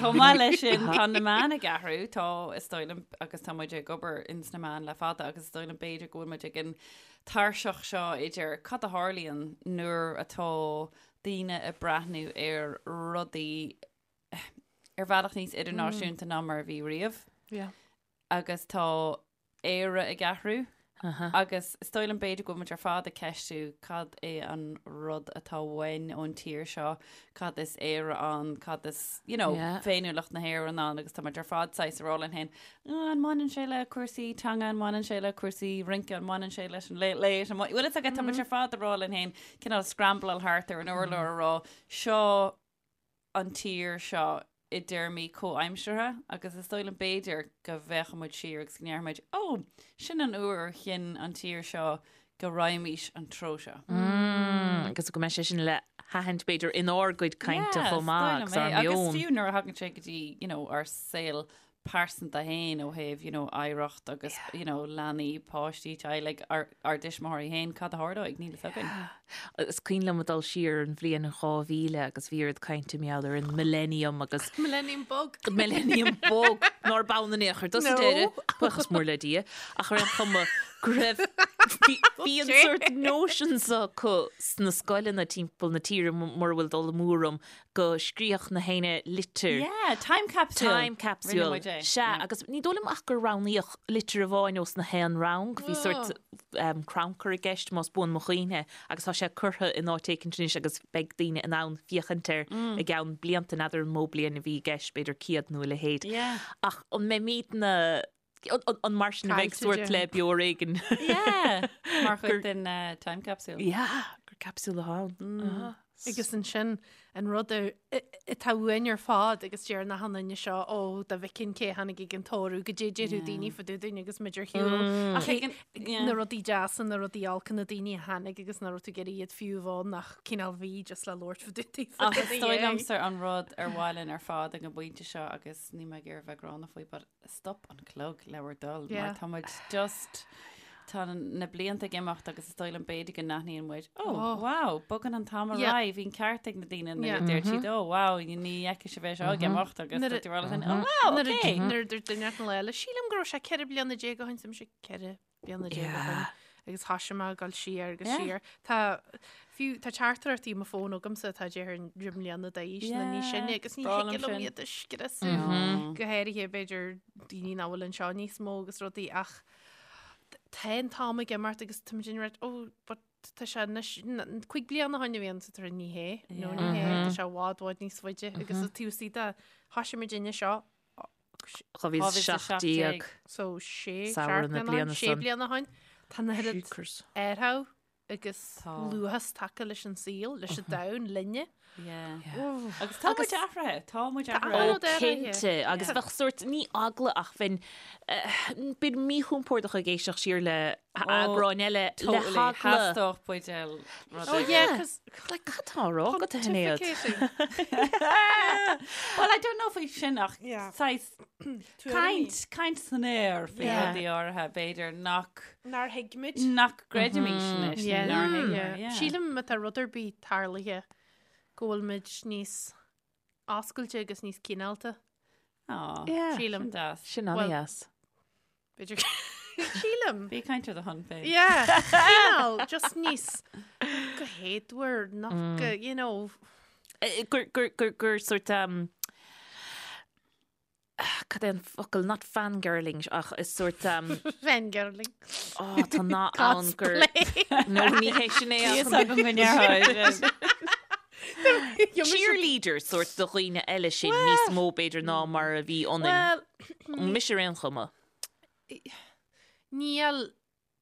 Chomh maith leis sin tá na meáin ag athrú, tá is dóigh liom agus tá muid ag obair ins na meáin le fada agus is dóigh liom b'fhéidir go bhfuil muid ag an tairseach seo idir cad a tharlaíonn nuair atá daoine ag breathnú ar rudaí ar bhealach níos idirnáisiúnta ná mar a bhí riamh. Yeah. Agus tá Éire ag athrú. Agus is dóigh liom b'fhéidir go bhfuil muid ar fad ag ceistiú cad é an rud atá uainn ón tír seo, cad is Éire ann, cad is, you know, Yeah. féiniúlacht na hÉireann ann agus tá muid ar fad saghas ag rá linn féin, An mbaineann sé le cúrsaí teanga, an mbaineann sé le cúrsaí rince, an mbaineann sé leis an Late Late, an bhfuil fhios agat, tá muid ar fad ag rá linn féin, cineál scrambláil thart ar an urlár a rá, seo an tír seo i dtéarmaí comhaimseartha agus is dóigh liom b'fhéidir go bhféachfaidh muid siar agus go ndéarfaidh muid, ó, sin an uair a chinn an tír seo go raghaimís an treo seo. Agus go mbeidh sé sin le haithint b'fhéidir inár gcuid cainte chomh maith agus ár Agus meon. fiú nuair a thagann sé go dtí, you know, ár saol pearsanta féin ó thaobh, you know, oidhreacht agus, you know, leanaí, páistí, teaghlaigh, ár, ár dtuismitheoirí féin, cad a tharlóidh, níl fhios againn. Is cuimhin liom ag dul siar an bhliain 2000 agus bhí oiread cainte mar gheall ar an Millennium agus Millennium Bug. Millennium Bug nár b'ann in aon chor sa No. deireadh, buíochas mór le Dia, ach ar aon chuma go raibh, bhí, bhí an sórt notion so acu sna scoileanna timpeall na tíre mura bhfuil dul amú orm go scríobhadh na héinne litir. Yeah, time capsule. Time capsule. Rinne muid é. Sea, Yeah. agus ní dóigh liom ach gur roghnaíodh litir amháin ós na haon rang. Bhí sórt um, crannchur i gceist más buan mo chuimhne agus tá sé curtha in áit éicint anois agus beidh daoine in ann féachaint air i gceann blianta, n'fheadar an mó bliain a bhí i gceist, b'fhéidir 100 nó a leithéid. Yeah. Ach an mbeimidne an mar sin a bheidh sórt le beo ar éigean? Yeah, mar chuid den eh, time capsule. Yeah, gur capsule atá ann. Mm. Agus ansin an rud atá uainn ar fad agus deir na han-duine seo ó dá bhfeicfinn cé tháinig ag an tórramh goidé déarfadh daoine fá dtaobh dúinn agus muid ar shiúl. Mm. Ach na rudaí deasa, na rudaí olca, na daoine a tháinig agus nach raibh tú ag iarraidh iad fiú a bheith ann ach cineál bhí just le labhairt fá dtaobh Ach is dóigh liomsa an rud ar mhaith linn ar fad ag an bpointe seo agus níl mé ag iarraidh bheith gránna faoi but stop an clog le bhur dtoil mar tá muid just tá na blianta ag imeacht agus is dóigh liom b'fhéidir go n-aithníonn muid oh, oh. wow, bogann an t-am ar aghaidh, bhí an ceart ag na daoine nuair a deir siad oh wow, ní fheicfidh sibh é seo ag imeacht agus tá tú ag rá oh wow, okay. Nuair a dúirt duine an lá eile, sílim go raibh sé 14 bliana ó shin, sé 14 bliana ó shin agus thoisigh mé ag dul siar agus siar. Tá fiú tá teachtaireachtaí i mo fón agamsa atá deich mbliana d'aois nó níos sine agus ní thig liom iad a scriosadh. Go háirithe b'fhéidir daoine nach bhfuil anseo níos mó agus rudaí ach tá an t-am ag imeacht agus tá muid in rud oh but tá sé anois 5 bliana ó shin a bhí ann sa tar ní hé nó ní hé tá sé i bhfad bhfad níos faide agus is tú sí de thoisigh muid inne seo 2017. So sé Samhradh na bliana sé san. bliana ó shin. Tá an oiread Jeepers. athrú agus Tá. luathas tagtha leis an saol, leis an domhan, linne. Yeah. Agus tá muid athraithe, tá muid Tá athraithe. an-rud athraithe. Cinnte, agus bheadh sórt, ní eagla ach bheinn, eh, bheinn míchompordach ag éisteacht siar le. Eagráin eile le heagla. Theastódh buidéal rud Oh yeah, cos Like, cad tá á rá agat, a Shinéad? Well, I don't know faoi sin ach saghas caint, caint san aer faoi rudaí áirithe, b'fhéidir nach Nár thuig muid. Nach gcreidimís anois, nó nár thuig muid, yeah. Sílim má tá rud ar bith tarlaithe go bhfuil muid níos oscailte agus níos cineálta. Á, Sílim. Sin deas. Sin an-deas. B'fhéidir sílim. Bí ag caint ar do shon féin. Yeah, cineál, just níos go héadmhar, nach go, you know. Gur, gur, gur, gur sort um, cad é an focal, not fangirling, ach is sort um, Fangirling. oh, tá nath ann gur, no, ní hé sin é ach Is agam go ndéarfá sin. Cheerleader sort do dhaoine eile sin níos mó b'fhéidir ná mar a bhí ionainn. Well, Mise ar aon chuma. Níl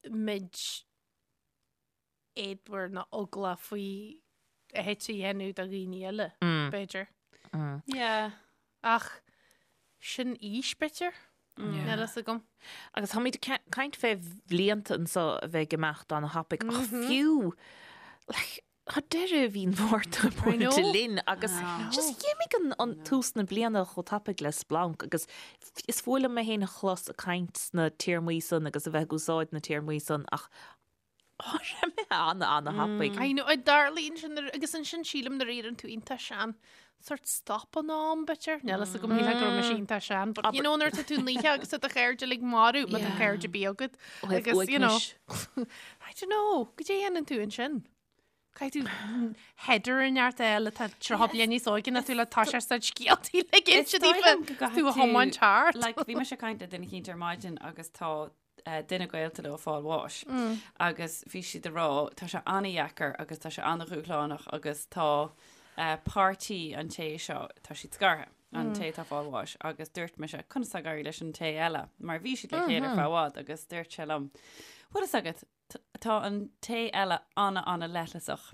muid éadmhar ná eaglach faoi a thit a dhéanamh do dhaoine eile, b'fhéidir. Yeah. Ach sin aois, b'fhéidir? Níl a fhios agam. Agus táimid ag caint fé bhlianta anso a bheith ag imeacht ana-thapaidh, ach fiú, like, Tá deireadh mhí an Mhárta buailte linn agus just d'imigh an tús na bliana chomh tapaidh le splanc agus is fuath liom mé féin a chlos ag caint sna téarmaí san agus a bheith ag úsáid na téarmaí san ach tá sé imithe ana ana thapaidh. I know, a darlene sin agus ansin sílim nuair a éiríonn tú iontach sean sort stop an am b'fhéidir. Níl a fhios agam níl go raibh mise iontach sean, but you know nuair atá tú naofa agus tá do chairde uilig marbh má tá cairde ar bith agat agus you know I don't know, goidé a dhéanann tú ansin? Caithfidh tú header in neart eile tá 30 bliain níos óige ná tú le tá sé sa scéaltaí le Is dóigh liom go tú gcaithfidh a thiomáint thart. Like, bhí mise ag caint le duine eicínt ar maidin agus tá eh, duine gaolta leo ag fáil bháis agus bhí siad ag rá tá sé an-dheacair agus tá sé an-dhúshlánach agus tá eh, páirtí an té seo tá siad scartha an té atá ag fáil bháis agus dúirt mise conas tá ag éirí leis an té eile mar bhí siad le chéile ar feadh i bhfad agus dúirt sé liom bhfuil fhios agat Tá an té eile ana ana leithleasach.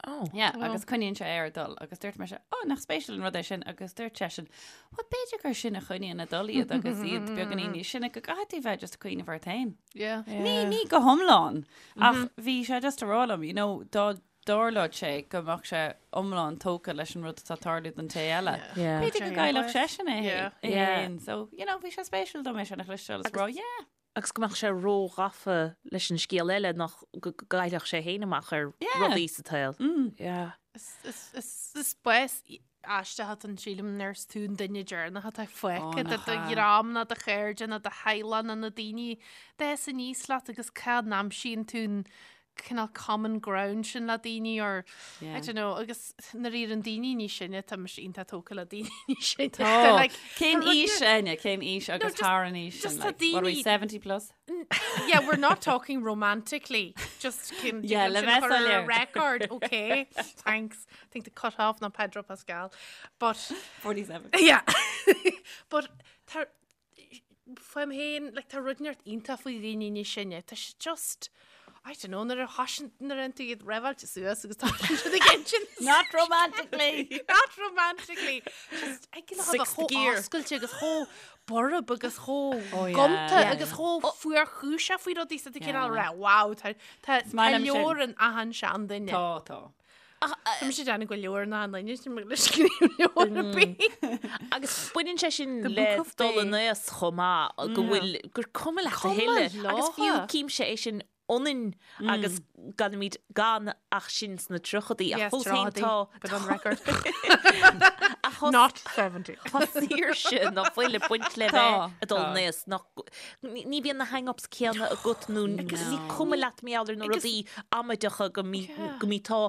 Oh. Yeah, agus coinníonn sé air ag dul agus dúirt mise, oh, nach spéisiúil an rud é sin agus dúirt seisean, well b'fhéidir gur sin a choinníonn ag dul iad agus iad beagáinín níos sine go gcaithfidh tú bheith just ag cuimhneamh ort féin. Yeah. Ní ní go hiomlán ach bhí sé just ag rá liom, you know, dá dtarlódh sé go mbeadh sé iomlán tógtha leis an rud atá ag tarlú don té eile. Yeah. B'fhéidir go gcaillfeadh seisean é Yeah. é Yeah. féin. So, you know, bhí sé spéisiúil dom é sin a chloisteáil is rá, yeah. agus go mbeadh sé róghafa leis an scéal eile nach go gcaillfeadh sé féin amach ar rudaí sa tsaol. Yeah. Is bás aisteach atá ann sílim nuair is tú an duine deireanach atá fágtha de do dhream ná do chairde ná do theaghlach ná na daoine d'fhás aníos leat agus cá n-aimsíonn tú an cineál common ground sin le daoine or I don't know agus nuair a éiríonn daoine níos sine tá mise iontach tógtha le daoine níos sine. Tá. Like, Cén tá rud aois Áine? Cén aois agus just- thar an aois just sin? tá Like, what are we, daoine- 70 plus? Yeah, we're not talking romantically. Just cin Yeah, le sin bheith chur ar soiléir. record, okay? Thanks. I think the cut off ná Pedro Pascal. But 47. yeah. But tá Fúm féin, like, tá rud inteacht iontach faoi dhaoine níos sine. Tá sé just, I don't know, nuair a thosaíonn, nuair a dhéanann tú iad reibheáilte suas agus tá siad ag insint. Not romantically! Not romantically! Just, ag go Sixth chomh gear. oscailte agus chomh borb agus chomh Oh, yeah. gonta Yeah. agus chomh fuarchúiseach faoi rudaí sa cineál Yeah. rá, wow, tá tá maith tá liom sin. leabhar in achan seanduine. Tá, tá. Tá mise ag déanamh go leor ná an duine sin le scríobh leabhar ar bith. Agus baineann sé sin The le Book of dul Day. in aois chomh maith go bhfuil gur cuma leat a Cuma thuilleadh. Agus fiú leotha. címse é sin ionainn agus ganaimid gan ach sinn sna tríochadaí ach Yes, fós féin tríochadaí, tá but on record. ach tá Not 70. Tá saoirse ná fuil ag baint le Tá, bheith ag dul tá. in aois nach ní ní bhíonn na hang-ups céanna agat nó ní cuma leat mar gheall ar na Agus- rudaí amaideacha go mí go mí tá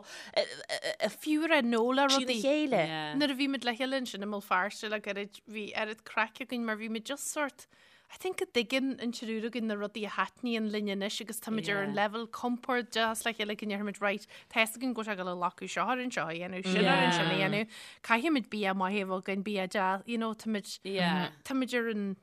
Fiú ar nó le trína rudaí. chéile. Yeah. Nuair a bhí muid le chéile ansin i mBéal Feirste le gairid bhí oiread craic againn mar bhí muid just sort I think go dtuigeann an triúr againn na rudaí a thaitníonn linn anois agus táimid ar an Yeah. level compordach le chéile go ndéarfaimid right tá fhios againn go bhfuil sé ag dul a ghlacadh seo orainn seo a dhéanamh, sin orainn sin a Yeah. dhéanamh. Caithfimid bia maith a bheith againn, bia deas, you know, táimid Yeah. táimid ar an.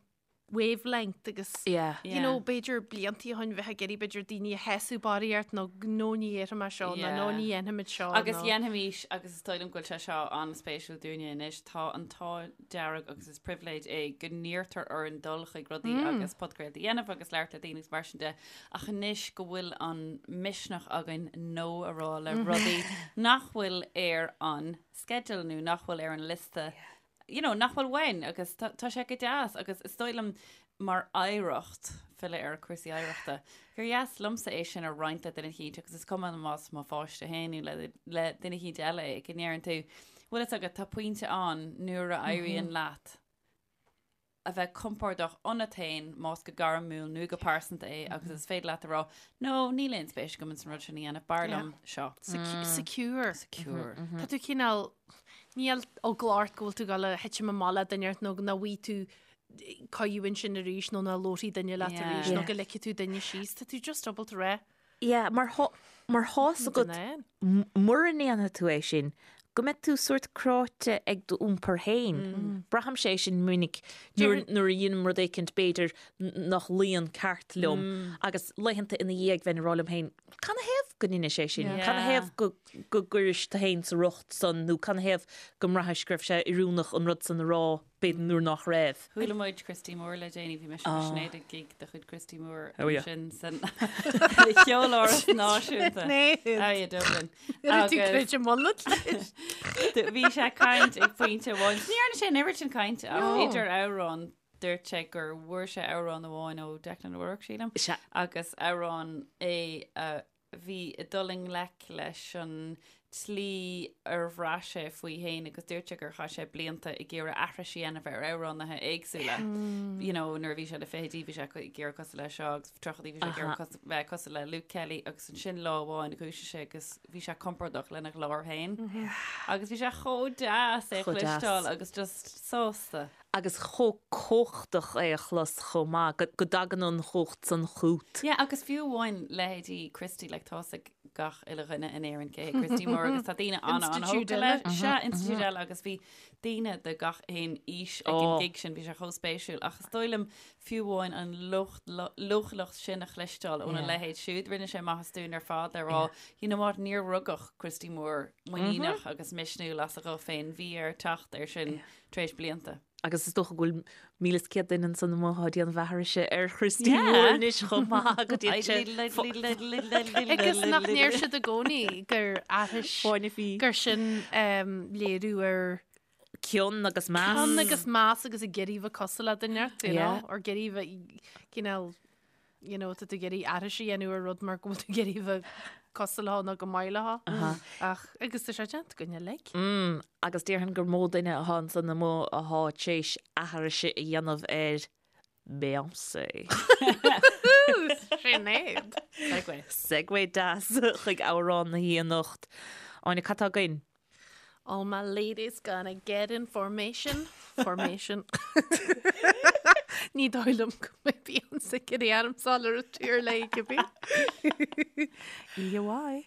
wavelength agus Yeah. you know, b'fhéidir bliantaí ó shin bheith ag iarraidh b'fhéidir daoine a shásamh barraíocht nó no ní dhéarfaidh mé seo nó no ní dhéanfaimid seo Agus dhéanfaimis, agus is dóigh liom go bhfuil sé seo an-spéisiúil dúinne anois, tá an t-ádh dearg agus is pribhléid é go n-iarrtar orainn dul chuig rudaí agus podchraoltaí a dhéanamh agus labhairt le daoine agus mar sin de, ach anois go bhfuil an misneach againn no a rá le rudaí nach bhfuil ar an sceideal nó nach bhfuil ar an liosta you know, nach bhfuil uainn agus tá tá sé go deas agus is dóigh liom mar oidhreacht, filleadh ar cúrsaí oidhreachta, gur dheas liomsa é sin a roinnt le duine eicínt agus is cuma más mo pháiste féin nó le, le duine eicínt eile é, go ndeireann tú, bhfuil fhios agat, tá pointe ann nuair a éiríonn leat a bheith compordach ionat féin, más go gairmiúil nó go pearsanta é, agus is féidir leat a rá, no, níl aon spéis agam ins an rud sin a dhéanamh, b'fhearr liom seo. Secure. Secure. Tá tú cineál, níl eagla ort go bhfuil tú ag dul a thitim amach le duine ort nó nach bhfaighidh tú cuireadh ansin arís nó nach labharfaidh duine leat arís nó go ligfidh tú duine síos. Tá tú just ábalta rá. Yeah, mar thá, mar thá's agat, mura ndéanfaidh tú é sin, go mbeidh tú sórt cráite ag d'iompar féin. Braithimse é sin minic nuair, nuair a dheinim rud éicint b'fhéidir nach luíonn ceart liom agus laethanta ina dhiaidh bheinn ag rá liom féin, canathaobh go ndeinis é sin? Canathaobh go, go gcuiris tú féin sa riocht san nó canathaobh go mbraithis go raibh sé oiriúnach an rud san a rá? b'fhéidir nuair nach raibh. Chuala muid Christy Moore le déanaí, bhí mise agus Sinéad ag gig de chuid Christy Moore Oh yeah. ansin san Cheoláras Náisiúnta. Sinéad. Oh yeah, Dublin. Nuair tú Agus creid i mbunad leis. bhí sé ag caint ag pointe amháin. Ní dhearna sé an oiread sin cainte ach No. idir amhráin dúirt sé gur bhfuair sé amhrán amháin ó Declan O'Rourke, sílim, Sea. agus amhrán é a bhí ag dul i ngleic leis an tslí ar bhraith sé faoi fhéin agus dúirt sé gur chaith sé blianta ag iarraidh aithris a dhéanamh ar amhránaithe éagsúla. You know, nuair a bhí sé na fichidí bhí sé ag iarraidh cosúil le seo agus tríochaidí bhí sé ag iarraidh bheith cosúil le Luke Kelly agus ansin lá amháin dhúisigh sé agus bhí sé compordach lena ghlór féin. Agus bhí sé chomh deas é a Chomh deas. chloisteáil agus just sásta. agus chomh cumhachtach é a chlos chomh maith, go dtagann an chumhacht san chút. Yeah, agus fiú amháin leithéidí Christy, like tá's ag gach uile dhuine in Éirinn cé hé Christy Moore agus tá daoine an-an-thógtha leis. Sea, institiúid eile agus bhí daoine de gach aon aois ag an gig sin, bhí sé chomh spéisiúil. Ach is dóigh liom fiú amháin an leochaileacht sin a chloisteáil óna leithéid siúd, rinne sé maitheas dúinn ar fad le rá, you know what, níor rugadh Christy Moore muiníneach agus misniúil as a ghuth féin, bhí air teacht air sin tar éis blianta. Agus is dócha go bhfuil 1,100 duine ansan amuigh atá ag déanamh aithrise ar Christy Moore anois chomh maith go dtí sé Agus nach ndeir siad i gcónaí gur aithris Fáinne fí. gur sin léiriú ar cion agus meas. Cion agus meas agus ag iarraidh bheith cosúil le duine ort, you know, or ag iarraidh bheith cineál you know, tá tú ag iarraidh aithris a dhéanamh ar rud mar go bhfuil tú ag iarraidh bheith cosúil leo nó go maith leo. Ach, agus tá sé déanta againn uilig. Mm, agus déarfainn gur mó duine atá ansan amuigh atá tar éis aithris a dhéanamh ar Beyoncé. Sinéad. Segue. Segue deas chuig amhrán na hoíche anocht. Áine, cad tá againn? All my ladies gonna get in formation, formation. Ní dóigh liom go mbeidh Beyonce ag iarraidh ormsa dul ar an tír léi cibé. EUI.